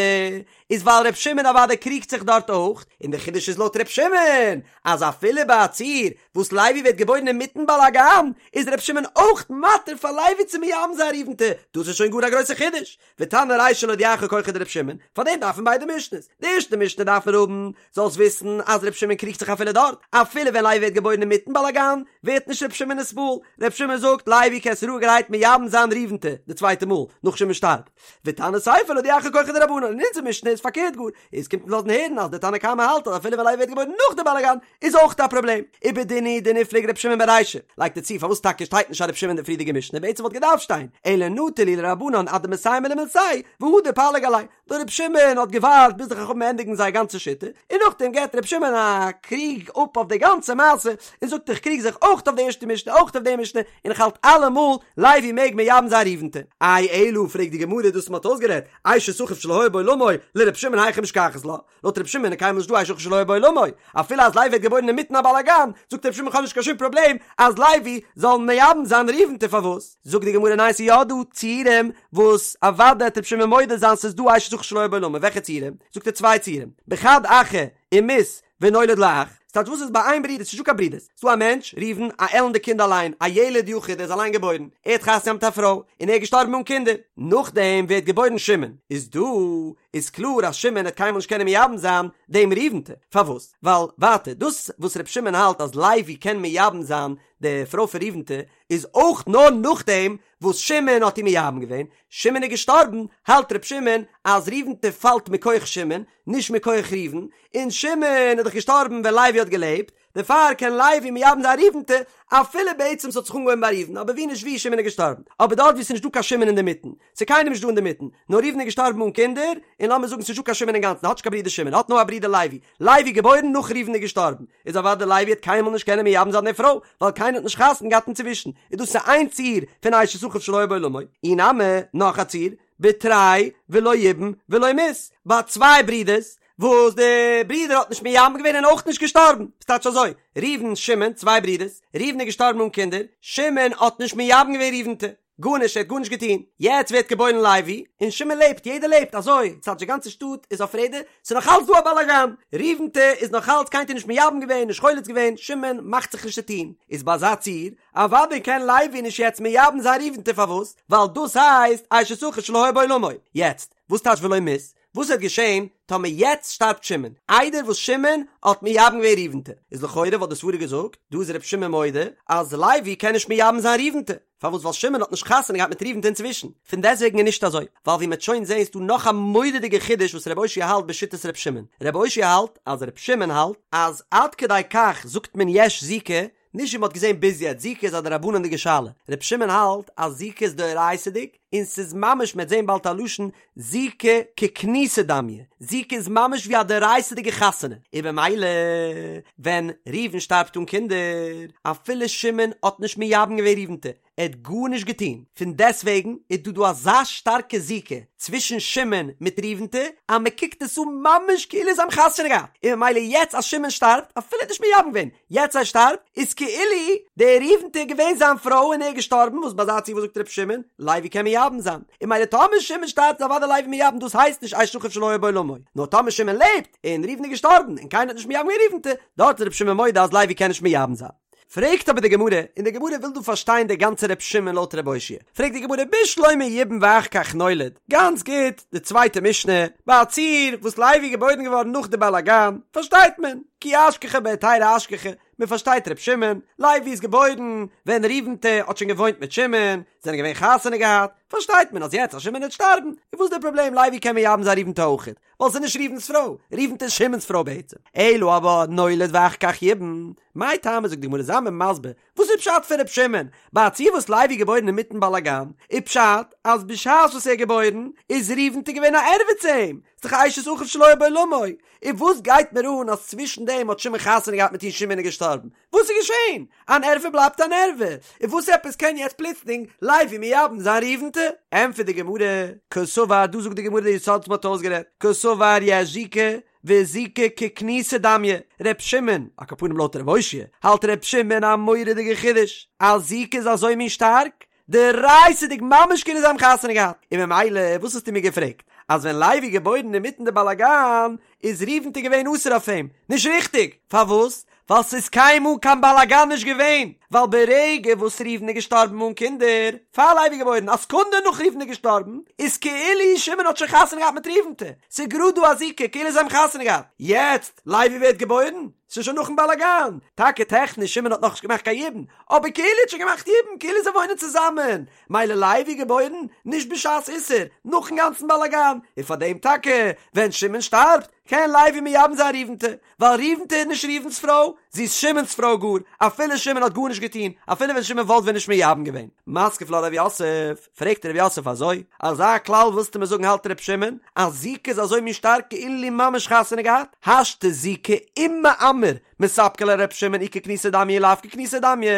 איז ווייל ר' שמעון אוודאי קריגט זיך דארט אויך, און די חידוש איז לויט ר' שמעון, אז אפילו ביי א ציור וואס לוי ווערט געבוירן אינמיטן באלאגאן, איז ר' שמעון אויך מתיר פאר לוי צו מייבם זיין ראובנ'טע, דאס איז שוין גאר א גרויסע חידוש, ותנא רישא להודיעך כחו דר' שמעון, פאר דעם דארף מען ביידע משנה'ס, די ערשטע משנה דארף מען האבן, זאלסט וויסן אז ר' שמעון קריגט זיך אפילו דארט, אפילו ווען לוי ווערט געבוירן אינמיטן באלאגאן, ווערט נישט ר' שמעון נתפעל, ר' שמעון זאגט לוי קענסט רואיגערהייט מייבם זיין ראובנ'טע, די צווייטע מאל, נאך שמעון שטארבט. ותנא סיפא להודיעך כחו דרבנן, און אונזער משנה איז פארקערט גאר, עס קומט אונז לאזן הערן אז דער תנא קמא האלט אז אפילו ווען לוי ווערט געבוירן נאך די באלאגאן, איז אויך א פראבלעם. ובדין הוא דניפלוג ר' שמעון ברישא, לייגט ער צו פארוואס טאקע שטייט נישט א ר' שמעון אין די פריערדיגע משנה, בעצם וואלט געדארפט שטיין, אלא נטר להו לרבנן עד דמסיימי למילתייהו, והדר פליג עלייהו. דער ר' שמעון האט געווארט ביז די חכמים ענדיגן זייער גאנצע שיטה, און נאכדעם געבט ר' שמעון א קריג אפ אויף די גאנצע מעשה, און זאגט איך קריג זיך אויך אויף די ערשטע משנה אויך אויף די משנה, און איך האלט אלעמאל לוי מעג מייבם זיין ראובנ'טע. איי אלא פרעגט די גמרא דאס מ'האט אויסגערעדט, אשת אחיו שלא היה בעולמו, לר' שמעון היכי משכחת לה, לויט ר' שמעון איז קיינמאל נישט דא אשת אחיו שלא היה בעולמו, אפילו אז לוי ווערט געבוירן אינמיטן א באלאגאן, זאגט ר' שמעון כ'האב נישט קיין שום פראבלעם אז לוי זאל מייבם זיין ראובנ'טע פארוואס? זאגט די גמרא ניין ס'איז יא דא ציורים וואס אוודאי העט ר' שמעון מודה זיין ס'איז דא אשת אחיו שלא היה בעולמו, וועלכע ציורים? זאגט ער צוויי ציורים, בחד אחא ומית ונולד לו אח, ס'טייטש וואס איז ביי איין ברודער, ס'נישט דא קיין ברודערס, ס'דא א מענטש, ראובן, א עלנדע קינד אליין, א ילד יחיד, ער איז אליין געבוירן, ער האט חתונה געהאט מיט א פרוי, און ער איז געשטארבן אן קינדער, נאכדעם ווערט געבוירן שמעון, איז דא איז קלאר אז שמעון העט קיינמאל נישט קענען מייבם זיין דעם ראובנ'טע, פארוואס? ווייל ווייטער דאס וואס ר' שמעון האלט אז לוי קען מייבם זיין די פרוי פון ראובנ'טע איז אויך נאר נאכדעם וואס שמעון האט איר מייבם געווען, שמעון איז געשטארבן, האלט ר' שמעון אז ראובנ'טע פאלט מכח שמעון, נישט מכח ראובן, און שמעון איז דאך געשטארבן ווען לוי האט געלעבט, דערפאר קען לוי מייבם זיין ראובנ'טע, אפילו בעצם ס'האט זיך אנגעהויבן ביי ראובן, אבער ווי נישט ווי שמעון איז געשטארבן. אבער דארט וואו ס'איז נישטא קיין שמעון אינדערמיטן, ס'איז קיינער נישט דא אינדערמיטן, נאר ראובן איז געשטארבן אן קינדער, און לאמיר זאגן ס'איז נישטא קיין שמעון אינגאנצן, האט נישט קיין ברודער שמעון, האט נאר א ברודער לוי, לוי געבוירן נאך ראובן איז געשטארבן, איז אוודאי לוי העט קיינמאל נישט קענען מייבם זיין די פרוי, ווייל קיינער האט נישט חתונה געהאט אינצווישן, איז דאס איז איין ציור פון אשת אחיו שלא היה בעולמו, אי נמי, נאך א ציור, בתרי ולא ייבם ולא מית, ביי צוויי ברידערס, וואס די ברודער האט נישט מייבם געווען און אויך נישט געשטארבן, ס'טייטש אזוי, ראובן שמעון, צוויי ברידערס, ראובן איז געשטארבן אן קינדער, שמעון האט נישט מייבם געווען ראובנ'טע, גארנישט, ער האט גארנישט געטון, יעצט ווערט געבוירן לוי, און שמעון לעבט, יעדער לעבט, אזוי, ס'טייטש די גאנצע שטאט איז אויף רעדער, ס'איז נאך אלץ דא א באלאגאן, ראובנ'טע איז נאך אלץ קיינער האט נישט מייבם געווען, נישט חולץ געווען, שמעון מאכט זיך נישט צו טון, איז ביי אזא ציור, אוודאי קען לוי נישט יעצט מייבם זיין ראובנ'טע פארוואס? ווייל דאס הייסט אשת אחיו שלא היה בעולמו, יעצט, וואס טייטש ולא מית? וואס וועט געשען טאמער יעצט שטארבט שמעון, איידער וואס שמעון האט מייבם געווען ראובנ'טע? איז לכאורה וואלט די סברה געזאגט, דא איז ר' שמעון מודה אז לוי קען נישט מייבם זיין ראובנ'טע, פארוואס ווייל שמעון האט נישט חתונה געהאט מיט ראובנ'טע אינצווישן, פון דעסטוועגן איז נישט אזוי, ווייל ווי מ'עט שוין זעהן איז דא נאך א מורא'דיגע חידוש וואס ר' אושעיא האלט בשיטת ר' שמעון, ר' אושעיא האלט אז ר' שמעון האלט אז עד כדי כך זאגט מען יש זיקה, נישט ווי מ'האט געזען ביז יעצט, זיקה איז א דרבנן'דיגע שאלה, ר' שמעון האלט אז זיקה איז דאורייתא'דיג, און ס'איז ממש מ'עט זען באלד א לשון זיקה ככנוסה דמיא, זיקה איז ממש ווי א דאורייתא'דיגע חתונה, און במילא ווען ראובן שטארבט אן קינדער, אפילו שמעון האט נישט מייבם געווען ראובנ'טע, ער האט גארנישט געטון, פון דעסטוועגן איז דא דא אזא שטארקע זיקה צווישן שמעון מיט ראובנ'טע, אז מען קוקט עס אן ממש כאילו זיי האבן חתונה געהאט, און ממילא יעצט אז שמעון שטארבט, אפילו ער האט נישט מייבם געווען, יעצט ער שטארבט, איז כאילו די ראובנ'טע איז געווען זיין פרוי און ער איז געשטארבן, וואס ביי אזא ציור וואס זאגט ר' שמעון, לוי קען מייבם זיין, און ממילא טאמער שמעון שטארבט איז אוודאי לוי מייבם דאס הייסט נישט אשת אחיו שלא היה בעולמו, נאר טאמער שמעון לעבט, און ראובן איז געשטארבן, און קיינער האט נישט מייבם געווען ראובנ'טע, דארט איז ר' שמעון מודה אז לוי קען נישט מייבם זיין. פרעגט אבער די גמרא, און די גמרא וויל דא פארשטיין די גאנצע ר' שמעון לויט ר' אושעיא, פרעגט די גמרא בשלמא יבם ואחר כך נולד, גאנץ גוט, די צווייטע משנה, ביי א ציור וואס לוי איז געבוירן געווארן נאך די באלאגאן, פארשטייט מען, כי אשכחה בהיתרא אשכחה, מען פארשטייט ר' שמעון, לוי איז געבוירן ווען ראובנ'טע האט שוין געוואוינט מיט שמעון, זענען געווען חתונה געהאט, פארשטייט מען אז יעצט אז שמעון וועט שטארבן, איז וואס די פראבלעם לוי קען מייבם זיין ראובנ'טע אויכעט, ווייל ס'איז נישט ראובן'ס פרוי, ראובנ'טע איז שמעון'ס פרוי בעצם. אלא אבער נולד ואחר כך ייבם, מאי טעמא זאגט די גמרא זיי מיר מסביר, וואס איז פשט פון ר' שמעון, ביי א ציור וואס לוי איז געבוירן אינמיטן באלאגאן, איז פשט אז בשעת וואס ער איז געבוירן איז ראובנ'טע געווען א ערווה צו אים, ס'איז דאך אשת אחיו שלא היה בעולמו, און וואס גייט מיר אן אז צווישן דעם האט שמעון חתונה געהאט מיט איר שמעון איז געשטארבן, וואס איז געשען? אן ערווה בלייבט אן ערווה, און וואס עפעס קען יעצט פלוצלינג לוי מייבם זיין ראובנ'טע? ענטפערט די גמרא, קסבר, דא זאגט די גמרא די יסוד וואס מ'האט אויסגערעדט, קסבר יש זיקה, וזיקה ככנוסה דמיא, ר' שמעון, על כל פנים לויט ר' אושעיא, האלט ר' שמעון א מורא'דיגע חידוש, אז זיקה איז אזוי מין שטארק, דאורייתא'דיג ממש כאילו זיי האבן חתונה געהאט, און ממילא וואס האסטו מיר געפרעגט אז ווען לוי איז געבוירן אינמיטן די באלאגאן איז ראובנ'טע געווען אסור אויף אים? נישט ריכטיג! פארוואס? ווייל ס'איז קיינמאל קיין באלאגאן נישט געווען, ווייל ברגע וואס ראובן איז געשטארבן אן קינדער, פאר לוי איז געבוירן, א סעקונדע נאך ראובן איז געשטארבן, איז כאילו שמעון האט שוין חתונה געהאט מיט ראובנ'טע, ס'איז גראד דא א זיקה כאילו זיי האבן חתונה געהאט, יעצט לוי ווערט געבוירן, ס'איז שוין נאכן באלאגאן, טאקע טעכניש שמעון האט נאכנישט געמאכט קיין יבום, אבער כאילו האט שוין געמאכט יבום, כאילו זיי וואוינען צוזאמען, מילא לוי געבוירן, נישט בשעת איסור, נאכן גאנצן באלאגאן, און פאר דעם טאקע, ווען שמעון שטארבט, קען לוי מייבם זיין ראובנ'טע, ווייל ראובנ'טע איז נישט ראובן'ס פרוי, זי איז שמעון'ס פרוי גאר, אפילו שמעון האט גארנישט געטון, אפילו ווען שמעון וואלט ווען נישט מייבם געווען. מתקיף לה רב יוסף, פרעגט רב יוסף אזוי, אזא כלל ווילסטו מיר זאגן האלט ר' שמעון, אז זיקה איז אזוי מין שטארק כאילו ממש חתונה געהאט, השתא זיקה ומאמר מספקא ליה לר' שמעון אי ככנוסה דמיא אי לאו ככנוסה דמיא,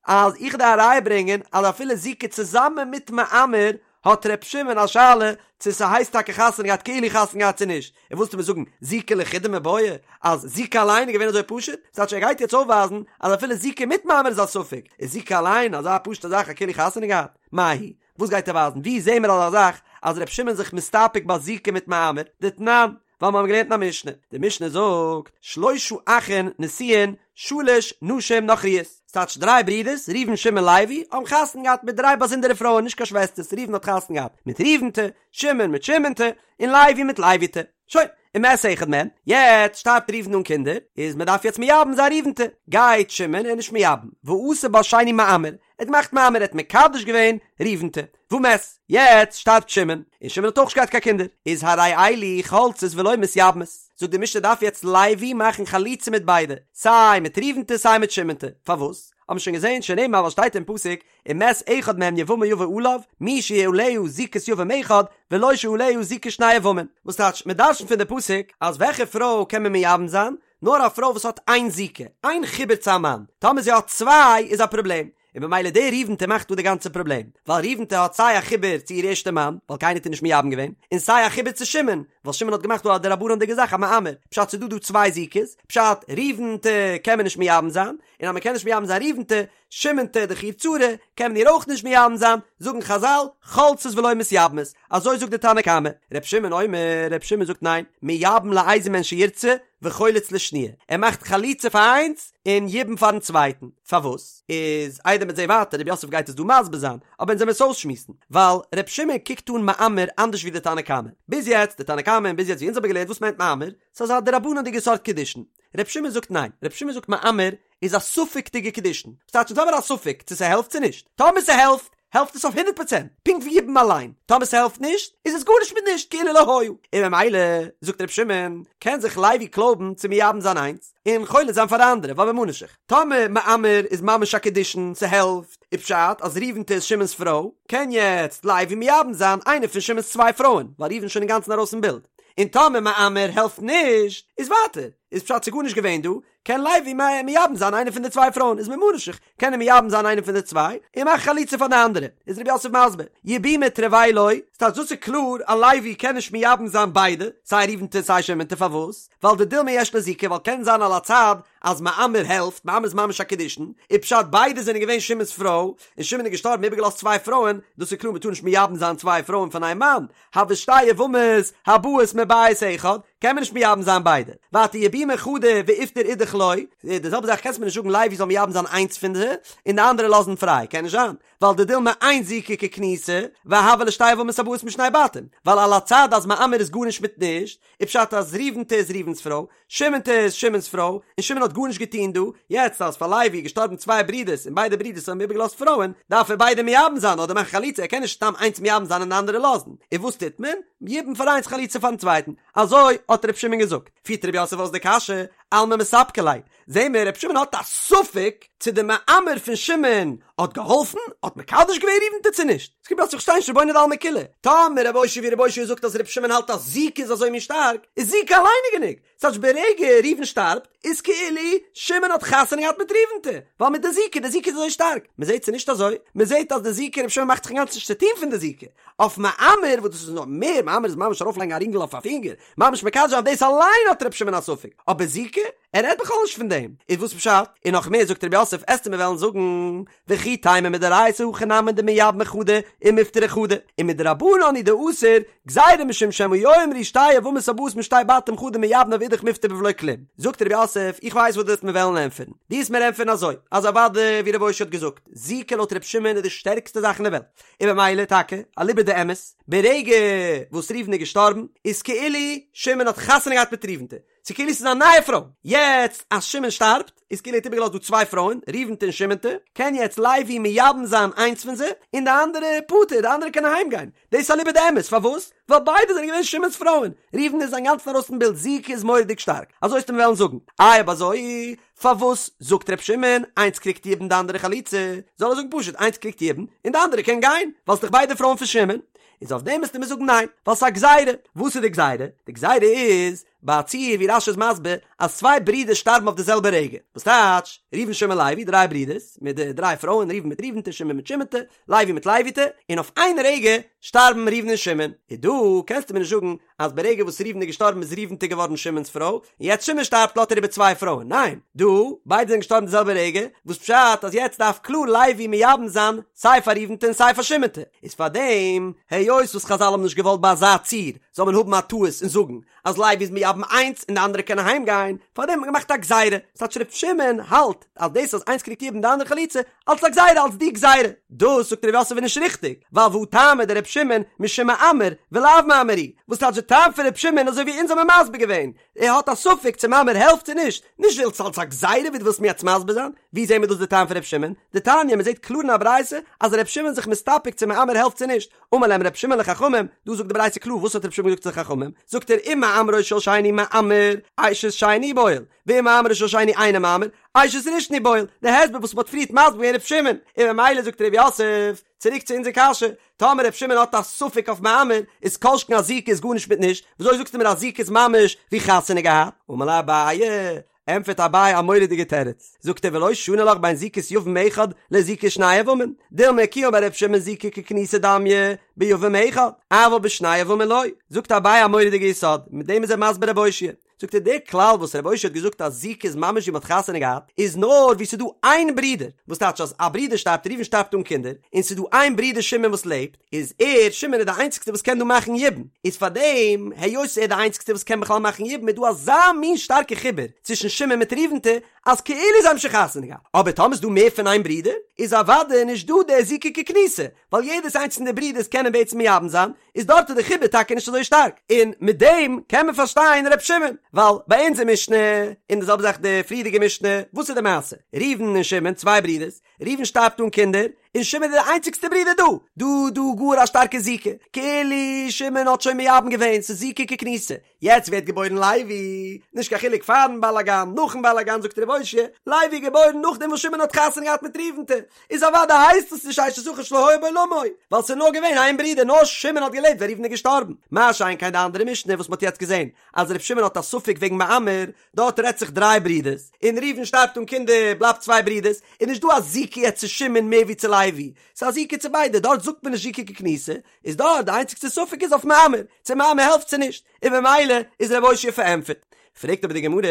אז איך דארף א ראיה ברענגען אז אפילו זיקה צוזאמען מיט מאמר האט ר' שמעון א שאלה צו ס'הייסט טאקע חתונה געהאט כאילו חתונה געהאט צו נישט, און ווילסטו מיר זאגן זיקה לחודה מיבעיא אז זיקה אליין איז געווען אזוי פשוט? ס'טייטש ער גייט יעצט אויפווייזן אז אפילו זיקה מיט מאמר איז א ספק, איז זיקה אליין אזא פשוטע זאך א כאילו חתונה געהאט? מאי היא? וואס גייט ער ווייזן? ווי זעהן מיר אזא זאך אז ר' שמעון זיך מסתפק ביי זיקה מיט מאמר? דתנן, ווייל מיר האבן געלערנט אין א משנה, די משנה זאגט, שלשה אחין נשואין שלש נשים נכריות, ס'טייטש דריי ברידערס, ראובן שמעון לוי, האבן חתונה געהאט מיט דריי באזונדערע פרויען נישט קיין שוועסטערס, ראובן האט חתונה געהאט מיט ראובנ'טע, שמעון מיט שמעונ'טע, און לוי מיט לוי'טע. שוין, ומת אחד מהן, יעצט שטארבט ראובן אן קינדער, איז מען דארף יעצט מייבם זיין ראובנ'טע, גייט שמעון און נישט מייבם, ועשה בה שני מאמר, ער האט געמאכט מאמר, ער האט מקדש געווען ראובנ'טע, ומת, יעצט שטארבט שמעון, און שמעון האט אויך נישט געהאט קיין קינדער, איז הרי אלו חולצות ולא מתייבמות, זאגט די משנה דארף יעצט לוי מאכן חליצה מיט ביידע, סיי מיט ראובנ'טע סיי מיט שמעונ'טע, פארוואס? האבן מיר שוין געזען שנאמר ווייל שטייט אין פסוק ומת אחד מהם יבמה יבא עליו, מי שעליה זיקת יבם אחד, ולא שעליה זיקת שני יבמים. וואס טייטש, מען דרש'נט פון די פסוק אז וועלכע פרוי קען מען מייבם זיין? נאר א פרוי וואס האט איין זיקה, איין חיבור צו א מאן, טאמער זי האט צוויי איז א פראבלעם, און במילא די ראובנ'טע מאכט דא די גאנצע פראבלעם, ווייל ראובנ'טע האט סיי א חיבור צו איר ערשטע מאן, ווייל קיינער האט איר נישט מייבם געווען, און סיי א חיבור צו שמעון, ווייל שמעון האט געמאכט דא א דרבנן'דיגע זאך א מאמר, פשט ס'איז דא דא צוויי זיקות, פשט ראובנ'טע קען מען נישט מייבם זיין, און אז מען קען נישט מייבם זיין ראובנ'טע, שמעונ'טע דאך איר צרה, קען מען איר אויך נישט מייבם זיין, זאגן חזל, חולצות ולא מתייבמות, אזוי זאגט די תנא קמא. ר' שמעון אומר, ר' שמעון זאגט ניין, מייבם לאיזה מהן שירצה, וחולץ לשניה, ער מאכט חליצה פאר איינס, און יבום פארן צווייטן, פארוואס? איז איידער מ'וועט זעהן ווייטער, ר' יוסף גייט עס דא מסביר זיין, אבער אונז וועמיר עס אויסשמועסן, ווייל ר' שמעון קוקט אן מאמר אנדערש ווי די תנא קמא, ביז יעצט, די תנא קמא און ביז יעצט ווי אונז האבן געלערנט וואס מיינט מאמר, ס'איז אזא דרבנן'דיגע סארט קידושין, ר' שמעון זאגט ניין, ר' שמעון זאגט מאמר איז א ספק'דיגע קידושין, וואס טייטש אונז האבן א ספק צו ס'העלפט צו נישט, טאמער ס'העלפט. העלפט עס אויף הונדרעט פראצענט, פונקט ווי יבום אליין, טאמער ס'העלפט נישט, איז עס גארנישט מיט נישט, כאילו לא היה. און ממילא, זאגט ר' שמעון, קען זיך לוי קלויבן צו מייבם זיין איינס, און חולץ זיין פאר די אנדערע, ווייל ממה נפשך, טאמער מאמר איז ממש א קידושין, ס'העלפט, איז פשט אז ראובנ'טע איז שמעון'ס פרוי, קען יעצט לוי מייבם זיין איינע פון שמעון'ס צוויי פרויען, ווייל ראובן איז שוין אינגאנצן ארויס פון בילד. און טאמער מאמר העלפט נישט, איז ווייטער, איז פשט ס'איז גארנישט געווען דא, קען לוי מייבם זיין איינע פון די צוויי פרויען, איז ממה נפשך, קען ער מייבם זיין איינע פון די צוויי, און מאכן חליצה פאר די אנדערע. איז רב יוסף מסביר, יבומי תרוייהו לא, ס'טייטש דאס איז קלאר אז לוי קען נישט מייבם זיין ביידע, סיי ראובנ'טע סיי שמעונ'טע, פארוואס? ווייל דדילמא יש לו זיקה, ווייל קען זיין על הצד אז מאמר העלפט, מאמר איז ממש א קידושין, איז פשט ביידע זענען געווען שמעון'ס פרוי, און שמעון איז געשטארבן איבערגעלאזט צוויי פרויען, דאס איז קלאר מ'טאר נישט מייבם זיין צוויי פרויען פון איין מאן, הוו שתי יבמות הבאות מבית אחד, קען מען נישט מייבם זיין ביידע. ווייטער יבומי חדא ואיפטר אידך לא, די זעלבע זאך קענסט מיר נישט זאגן לוי זאל מייבם זיין איינס פון די, און די אנדערע לאזן פריי, קען נישט זיין, ווייל דדילמא אין זיקה ככנוסה, והוו להו שתי יבמות הבאות משני בתים, ווייל על הצד אז מאמר איז גארנישט מיט נישט, איז פשט אז ראובנ'טע איז ראובן'ס פרוי, שמעונ'טע איז שמעון'ס פרוי, און שמעון האט גארנישט געטון דא, יעצט אז פאר לוי איז געשטארבן צוויי ברידערס און ביידע ברידערס האבן איבערגעלאזט פרויען, דארף ער ביידע מייבם זיין אדער מאכן חליצה, ער קען נישט סתם איינס מייבם זיין און די אנדערע לאזן, און וואס טוט מען? יבום פאר איינס חליצה פארן צווייטן, אזוי האט ר' שמעון געזאגט. פירט ר' יוסף אויס די קשיא, אלמא מספקא ליה, זעהן מיר ר' שמעון האט א ספק צו די מאמר פון שמעון האט געהאלפן, האט מקדש געווען ראובנ'טע צו נישט, ס'קומט אויס איך שטיי נישט רבונו דעלמא כולא, טאמער רב אושעיא ווי רב אושעיא זאגט אז ר' שמעון האלט אז זיקה איז אזוי מין שטארק, איז זיקה אליין איז גענוג, ס'טייטש ברגע ראובן שטארבט איז כאילו שמעון האט חתונה געהאט מיט ראובנ'טע, ווייל מיט די זיקה, די זיקה איז אזוי שטארק, מ'זעהט ס'איז נישט אזוי, מ'זעהט אז די זיקה ר' שמעון מאכט זיך אינגאנצן נישט צוטוהן פון די זיקה, אויף מאמר וואס דאס איז נאך מער, מאמר איז ממש ארויפלייגן א רינגל אויף א פינגער, ממש מקדש זיין דאס אליין האט ר' שמעון א ספק, אבער זיקה? ער רעדט בכלל נישט פון דעם, איז וואס פשט? און נאך מער זאגט רב יוסף עסטו מיר וועלן זאגן, וכי תימא מדאורייתא הכי נמי דמייבמי חדא ומפטרי חדא, ומדרבנן הוא דאסור, גזירה משום שמא יאמרו שתי יבמות הבאות משתי בתים חדא מייבמא ואידך מיפטר בבלא כלום. זאגט רב יוסף, איך ווייס וואס דו וועסט מיר וועלן ענטפערן. דו וועסט מיר ענטפערן אזוי, אז אוודאי ווי רב אושעיא האט געזאגט, זיקה לויט ר' שמעון איז די שטערקסטע זאך אין די וועלט, און במילא טאקע, אליבא דאמת, ברגע וואס ראובן איז געשטארבן, איז כאילו שמעון האט חתונה געהאט מיט ראובנ'טע, ס'איז כאילו ס'איז א נייע פרוי. יעצט אז שמעון שטארבט, איז כאילו ער האט איבערגעלאזט דא צוויי פרויען, ראובנ'טע און שמעונ'טע, קען יעצט לוי מייבם זיין איינס פון זיי, און די אנדערע פטור, די אנדערע קען אהיים גיין. דאס איז אליבא דאמת, פארוואס? ווייל ביידע זענען געווען שמעון'ס פרויען. ראובן איז אינגאנצן ארויס פון בילד, זיקה איז מורא'דיג שטארק. אזוי וועסטו מיר וועלן זאגן. איי אויב אזוי, פארוואס זאגט ר' שמעון, איינס קריגט יבום די אנדערע חליצה? זאל ער זאגן פשוט, איינס קריגט יבום, און די אנדערע קען גיין, ווייל ס'דאך ביידע פרויען פון שמעון. איז אויף דעם וועסטו מיר זאגן ניין, ווייל ס'איז א גזירה. וואס איז די גזירה? די גזירה איז, ביי א ציור ווי רש"י איז מסביר, אז צוויי ברידער שטארבן אויף די זעלבע רגע. וואס טייטש, ראובן שמעון לוי, דריי ברידערס, מיט די דריי פרויען, ראובן מיט ראובנ'טע, שמעון מיט שמעונ'טע, לוי מיט לוי'טע, און אויף איין רגע שטארבן ראובן און שמעון. איז דא קענסטו מיר נישט זאגן אז ברגע וואס ראובן איז געשטארבן איז ראובנ'טע געווארן שמעון'ס פרוי, און יעצט שמעון שטארבט לאזט ער איבער צוויי פרויען. ניין, דא, ביידע זענען געשטארבן די זעלבע רגע, וואס פשט אז יעצט דארף קלאר לוי מייבם זיין סיי פאר ראובנ'טע און סיי פאר שמעונ'טע. איז פארדעם, היות וואס חזל האבן נישט געוואלט ביי אזא ציור זאל מען האבן א טעות און זאגן אז לוי איז מייבם איינס און די אנדערע קען אהיים גיין, פארדעם האט מען געמאכט א גזירה, ס'טייטש ר' שמעון האלט אז דאס אז איינס קריגט יבום די אנדערע חליצה, אלס א גזירה אלס די גזירה. דאס זאגט ר' יוסף איז נישט ריכטיג, ווייל והא טעמא דר' שמעון משום מאמר ולאו מאמר הוא, וואס טייטש די טעם פון ר' שמעון אזוי ווי אונז האבן מסביר געווען, ער האט א ספק צו מאמר העלפט צו נישט, נישט ווייל ס'אלס א גזירה ווי דו ווילסט מיר יעצט מסביר זיין, ווי זעהן מיר דאס די טעם פון ר' שמעון? דתניא, מ'זעהט קלאר אין א ברייתא אז ר' שמעון איז זיך מסתפק צו מאמר העלפט צו נישט, אמר להם ר' שמעון לחכמים, דא זאגט די ברייתא קלאר וואס האט ר' שמעון געזאגט צו די חכמים, זאגט ער אם מאמרו של שני מאמר, אשת שני בועל, ואם מאמרו של שני אינו מאמר, אשת ראשון הוא בועל, די הסבר וואס מ'האט פריערט מסביר געווען ר' שמעון, און ממילא זאגט ר' יוסף, צוריק צו אונזער קשיא, טאמער ר' שמעון האט א ספק אויף מאמר, איז כל שכן אז זיקה איז גארנישט מיט נישט, וויאזוי זאגסטו מיר אז זיקה איז ממש ווי חתונה געהאט? אמר ליה אביי, ענטפערט אביי א מורא'דיגע תירוץ, זאגט ער ולא שני לך בין זיקת יבם אחד לזיקת שני יבמים, דילמא כי אמר ר' שמעון זיקה ככנוסה דמיא ביבם אחד, אבל בשני יבמים לא, זאגט אביי א מורא'דיגע יסוד, מיט דעם איז ער מסביר רב אושעיא, זאגט ער דער כלל וואס רב אושעיא האט געזאגט אז זיקה איז ממש ווי מ'האט חתונה געהאט איז נאר ווי ס'איז דא איין ברודער, וואס טייטש אז א ברודער שטארבט ראובן שטארבט אן קינדער, און ס'איז דא איין ברודער שמעון וואס לעבט, איז ער, שמעון איז די איינציגסטע וואס קען דא מאכן יבום, איז פארדעם היות ער איז די איינציגסטע וואס קען בכלל מאכן יבום איז דא אזא מין שטארקע חיבור צווישן שמעון מיט ראובנ'טע אז כאילו זיי האבן שוין חתונה געהאט, אבער טאמער איז דא מער פון איין ברודער איז אוודאי נישט דא דער זיקה ככנוסה, ווייל יעדעס איינס פון די ברודערס קענען בעצם מייבם זיין, איז דארט איז די חיבור טאקע נישט אזוי שטארק, און מיט דעם קען מען פארשטיין ר' שמעון, ווייל ביי אונזער משנה, און די זעלבע זאך די פריערדיגע משנה, וואס איז די מעשה? ראובן און שמעון צוויי ברודערס, ראובן שטארבט אן קינדער, און שמעון איז די איינציגסטע ברודער דא, דא דא גאר א שטארקע זיקה, כאילו שמעון האט שוין מייבם געווען, ס'איז זיקה ככנוסה, יעצט ווערט געבוירן לוי, נישט קיין חילוק פארן באלאגאן, נאכן באלאגאן זאגט ר' אושעיא, לוי איז געבוירן נאכדעם וואס שמעון האט חתונה געהאט מיט ראובנ'טע, איז אוודאי הייסט עס נישט אשת אחיו שלא היה בעולמו, ווייל ס'איז נאר געווען איין ברודער נאר שמעון האט געלעבט ווען ראובן איז געשטארבן, מה שאין כן די אנדערע משנה וואס מ'האט יעצט געזען אז ר' שמעון האט א ספק וועגן מאמר, דארט רעדט זיך דריי ברידערס, און ראובן שטארבט אן קינדער, בלייבט צוויי ברידערס, איז נישט דא א זיקה יעצט צו שמעון מער ווי צו לוי, ס'איז א זיקה צו ביידע, דארט זאגט מען נישט זיקה ככנוסה, איז דארט די איינציגסטע ספק איז אויף מאמר, צו מאמר העלפט צו נישט, און במילא איז ר' אושעיא פארענטפערט. פרעגט אבער די גמרא,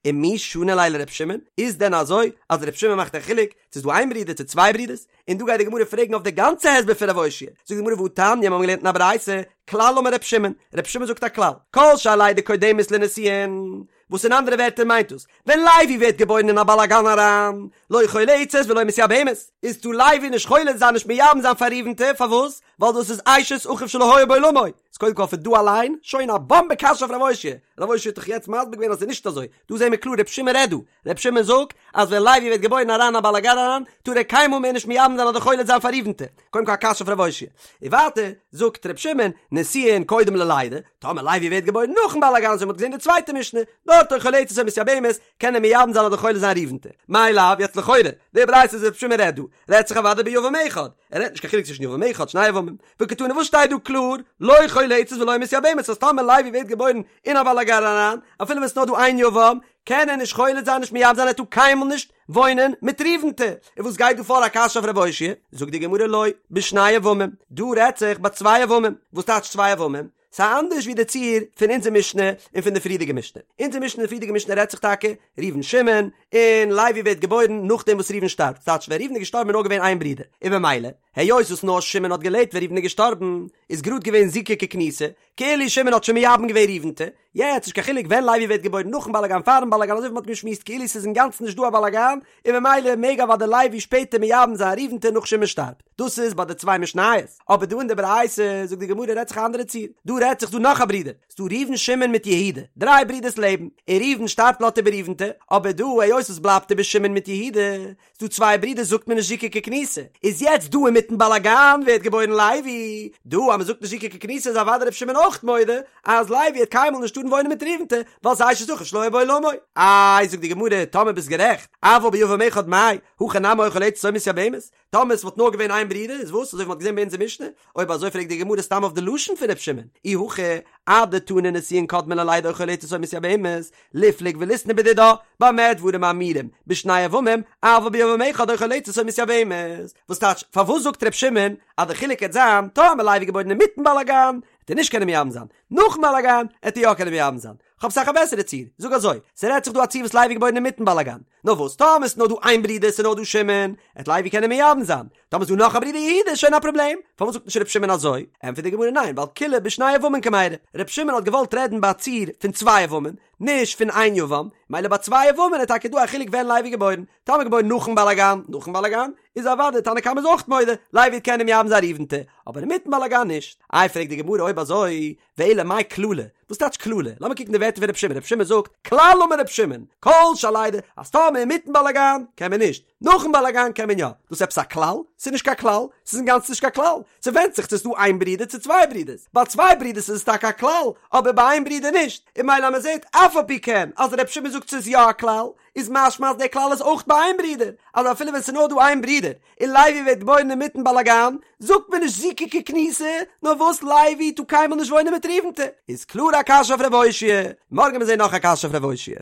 ומי שני ליה לר' שמעון, איז דען אזוי אז ר' שמעון מאכט א חילוק צו ס'איז דא איין ברודער צו צוויי ברודערס, און דא גייט די גמרא פרעגן אויף די גאנצע הסבר פון ר' אושעיא, זאגט די גמרא והתניא, מיר האבן געלערנט אין א ברייתא, כלל אמר ר' שמעון, ר' שמעון זאגט א כלל, כל שהלידה קודמת לנישואין, וואס אין אנדערע ווערטער מיינט דאס, ווען לוי ווערט געבוירן אין א באלאגאן אריין, לא חולצת ולא מתייבמת, איז טאר לוי נישט חולץ זיין נישט מייבם זיין פאר ראובנ'טע, פארוואס? ווייל דאס איז אשת אחיו שלא היה בעולמו, איז קודם כל פון דא אליין, שוין א באמבע קשיא אויף ר' אושעיא, ר' אושעיא האט דאך יעצט מסביר געווען אז ס'איז נישט אזוי, דא זעהן מיר קלאר ר' שמעון רעדט דא, ר' שמעון זאגט אז ווען לוי ווערט געבוירן אריין א באלאגאן אריין, טאר ער קיינמאל מער נישט מייבם זיין אדער חולץ זיין פאר ראובנ'טע, קודם כל א קשיא אויף ר' אושעיא. און ווייטער זאגט ר' שמעון, נישואין קודם ללידה, טאמער לוי ווערט געבוירן נאכן באלאגאן אזוי ווי מ'האט געזעהן די צווייטע משנה, דארט או חולצת או מתייבמת, קען ער מייבם זיין אדער חולץ זיין ראובנ'טע. מאי לאו, יעצט לכאורה, די ברייתא וואס ר' שמעון רעדט דא, רעדט זיך אוודאי ביבם אחד, ער רעדט נישט קיין חילוק צווישן יבם אחד שני יבמים, וקתני וואס שטייט דא קלאר, לא חולצת ולא מתייבמת אז טאמער לוי ווערט געבוירן אין א באלאגאן אריין, אפילו ווען ס'נאר דא איין יבם, קען ער נישט חולץ זיין נישט מייבם זיין ער טאר קיינמאל נישט וואוינען מיט ראובנ'טע, און וואס גייט דא פאר א קשיא אויף ר' אושעיא? זאגט די גמרא לא, בשני יבמים, דא רעדט זיך ביי צוויי יבמים, וואס טייטש צוויי יבמים? ס'איז אנדערש ווי די ציור פון אונזער משנה און פון די פריערדיגע משנה. אונזער משנה און די פריערדיגע משנה רעדט זיך טאקע ראובן שמעון, און לוי ווערט געבוירן נאכדעם וואס ראובן שטארבט, ס'טייטש ווען ראובן איז געשטארבן איז נאר געווען איין ברודער, און במילא, היות וואס נאר שמעון האט געלעבט ווען ראובן איז געשטארבן, איז גראד געווען זיקה ככנוסה, כאילו שמעון האט שוין מייבם געווען ראובנ'טע, יעצט נישט קיין חילוק ווען לוי ווערט געבוירן נאכן באלאגאן פארן באלאגאן אזוי ווי מ'האט געשמועסט כאילו ס'איז אינגאנצן נישט דא א באלאגאן, און במילא מעג אוודאי לוי שפעטער מייבם זיין ראובנ'טע נאך שמעון שטארבט. דאס איז ביי די צוויי משניות, אבער דא אין די ברייתא זאגט די גמרא רעדט זיך א אנדערע ציור, דא רעדט זיך דא נאך א ברודער, ס'דא ראובן שמעון מיט יהודה, דריי ברודערס לעבן, און ראובן שטארבט לאזט איבער ראובנ'טע, אבער דא היות עס בלייבט איבער שמעון מיט יהודה, ס'דא צוויי ברודערס זאגט מען נישט זיקה ככנוסה, איז יעצט דא אינמיטן באלאגאן ווערט געבוירן לוי, דא אז מ'זאגט נישט זיקה ככנוסה איז אוודאי ר' שמעון אויך מודה אז לוי וועט קיינמאל נישט טארן וואוינען מיט ראובנ'טע, ווייל ס'איז אשת אחיו שלא היה בעולמו. איי זאגט די גמרא טאמער ביסט גערעכט, אבל ביבם אחד מאי, הכא נמי או חולצת או מתייבמת, טאמער עס וואלט נאר געווען איין ברודער איז וואס? אזוי ווי מ'האט געזען ביי אונזער משנה? אויב אזוי פרעגט די גמרא סתם אויף די לשון פון ר' שמעון, אי הכי אדתני נישואין קודמין ללידה או חולצת או מתייבמת, ליפלוג וליתני בדידה, במה דברים אמורים, בשני יבמים, אבל ביבם אחד או חולצת או מתייבמת. וואס טייטש, פארוואס זאגט ר' שמעון אז די חילוק העט זיין, טאמער לוי געבוירן אינמיטן באלאגאן, העט ער נישט קענען מייבם זיין, נאכן באלאגאן, העט ער יא קענען מייבם זיין. כ'האב אסאך א בעסערע ציור, זאג אזוי, ס'רעדט זיך דא א ציור וואס לוי איז געבוירן אינמיטן באלאגאן, נאר וואס טאמער ס'נאר דא איין ברודער ס'נאר דא שמעון, עט לוי קענען מייבם זיין, טאמער ס'דא נאך א ברודער יהודה איז שוין א פראבלעם, פארוואס זאגט נישט ר' שמעון אזוי? ענטפערט די גמרא ניין ווייל כולה בשני יבמים קמיירי, ר' שמעון האט געוואלט רעדן ביי א ציור פון צוויי יבמים, נישט פון איין יבם, מילא ביי צוויי יבמים איז טאקע דא א חילוק ווען לוי איז געבוירן, טאמער געבוירן נאכן באלאגאן, נאכן באלאגאן, איז אוודאי תנא קמא איז אויך מודה, לוי וועט קענען מייבם זיין ראובנ'טע, אבער אינמיטן באלאגאן נישט. איי פרעגט די גמרא אויב אזוי, ואלא מאי כללא? וואס טייטש כללא? לאמיר קוקן די ווערטער פון רבי שמעון, רבי שמעון זאגט, כלל אמר רבי שמעון, כל שהלידה, אז טאמער אינמיטן באלאגאן קען מען נישט, נאכן באלאגאן קען מען יא. דאס איז עפעס א כלל? ס'איז נישט קיין כלל, ס'איז אינגאנצן נישט קיין כלל. ס'ווענדט זיך צו ס'איז דא איין ברודער צו צוויי ברודערס. ביי צוויי ברודערס איז עס טאקע א כלל, אבער ביי איין ברודער נישט. און מילא אז מ'זעט אף על פי כן אז רבי שמעון זאגט ס'איז יא א כלל, איז משמע אז דער כלל איז אויך ביי איין ברודער, אז אפילו ווען ס'איז נאר דא איין ברודער, און לוי ווערט געבוירן אינמיטן באלאגאן, זאגט מען נישט זיקה ככנוסה, נאר וואס לוי טאר קיינמאל נישט וואוינען מיט ראובנ'טע, איז קלאר א קשיא אויף ר' אושעיא, מארגן מיר זעהן נאך א קשיא אויף ר' אושעיא.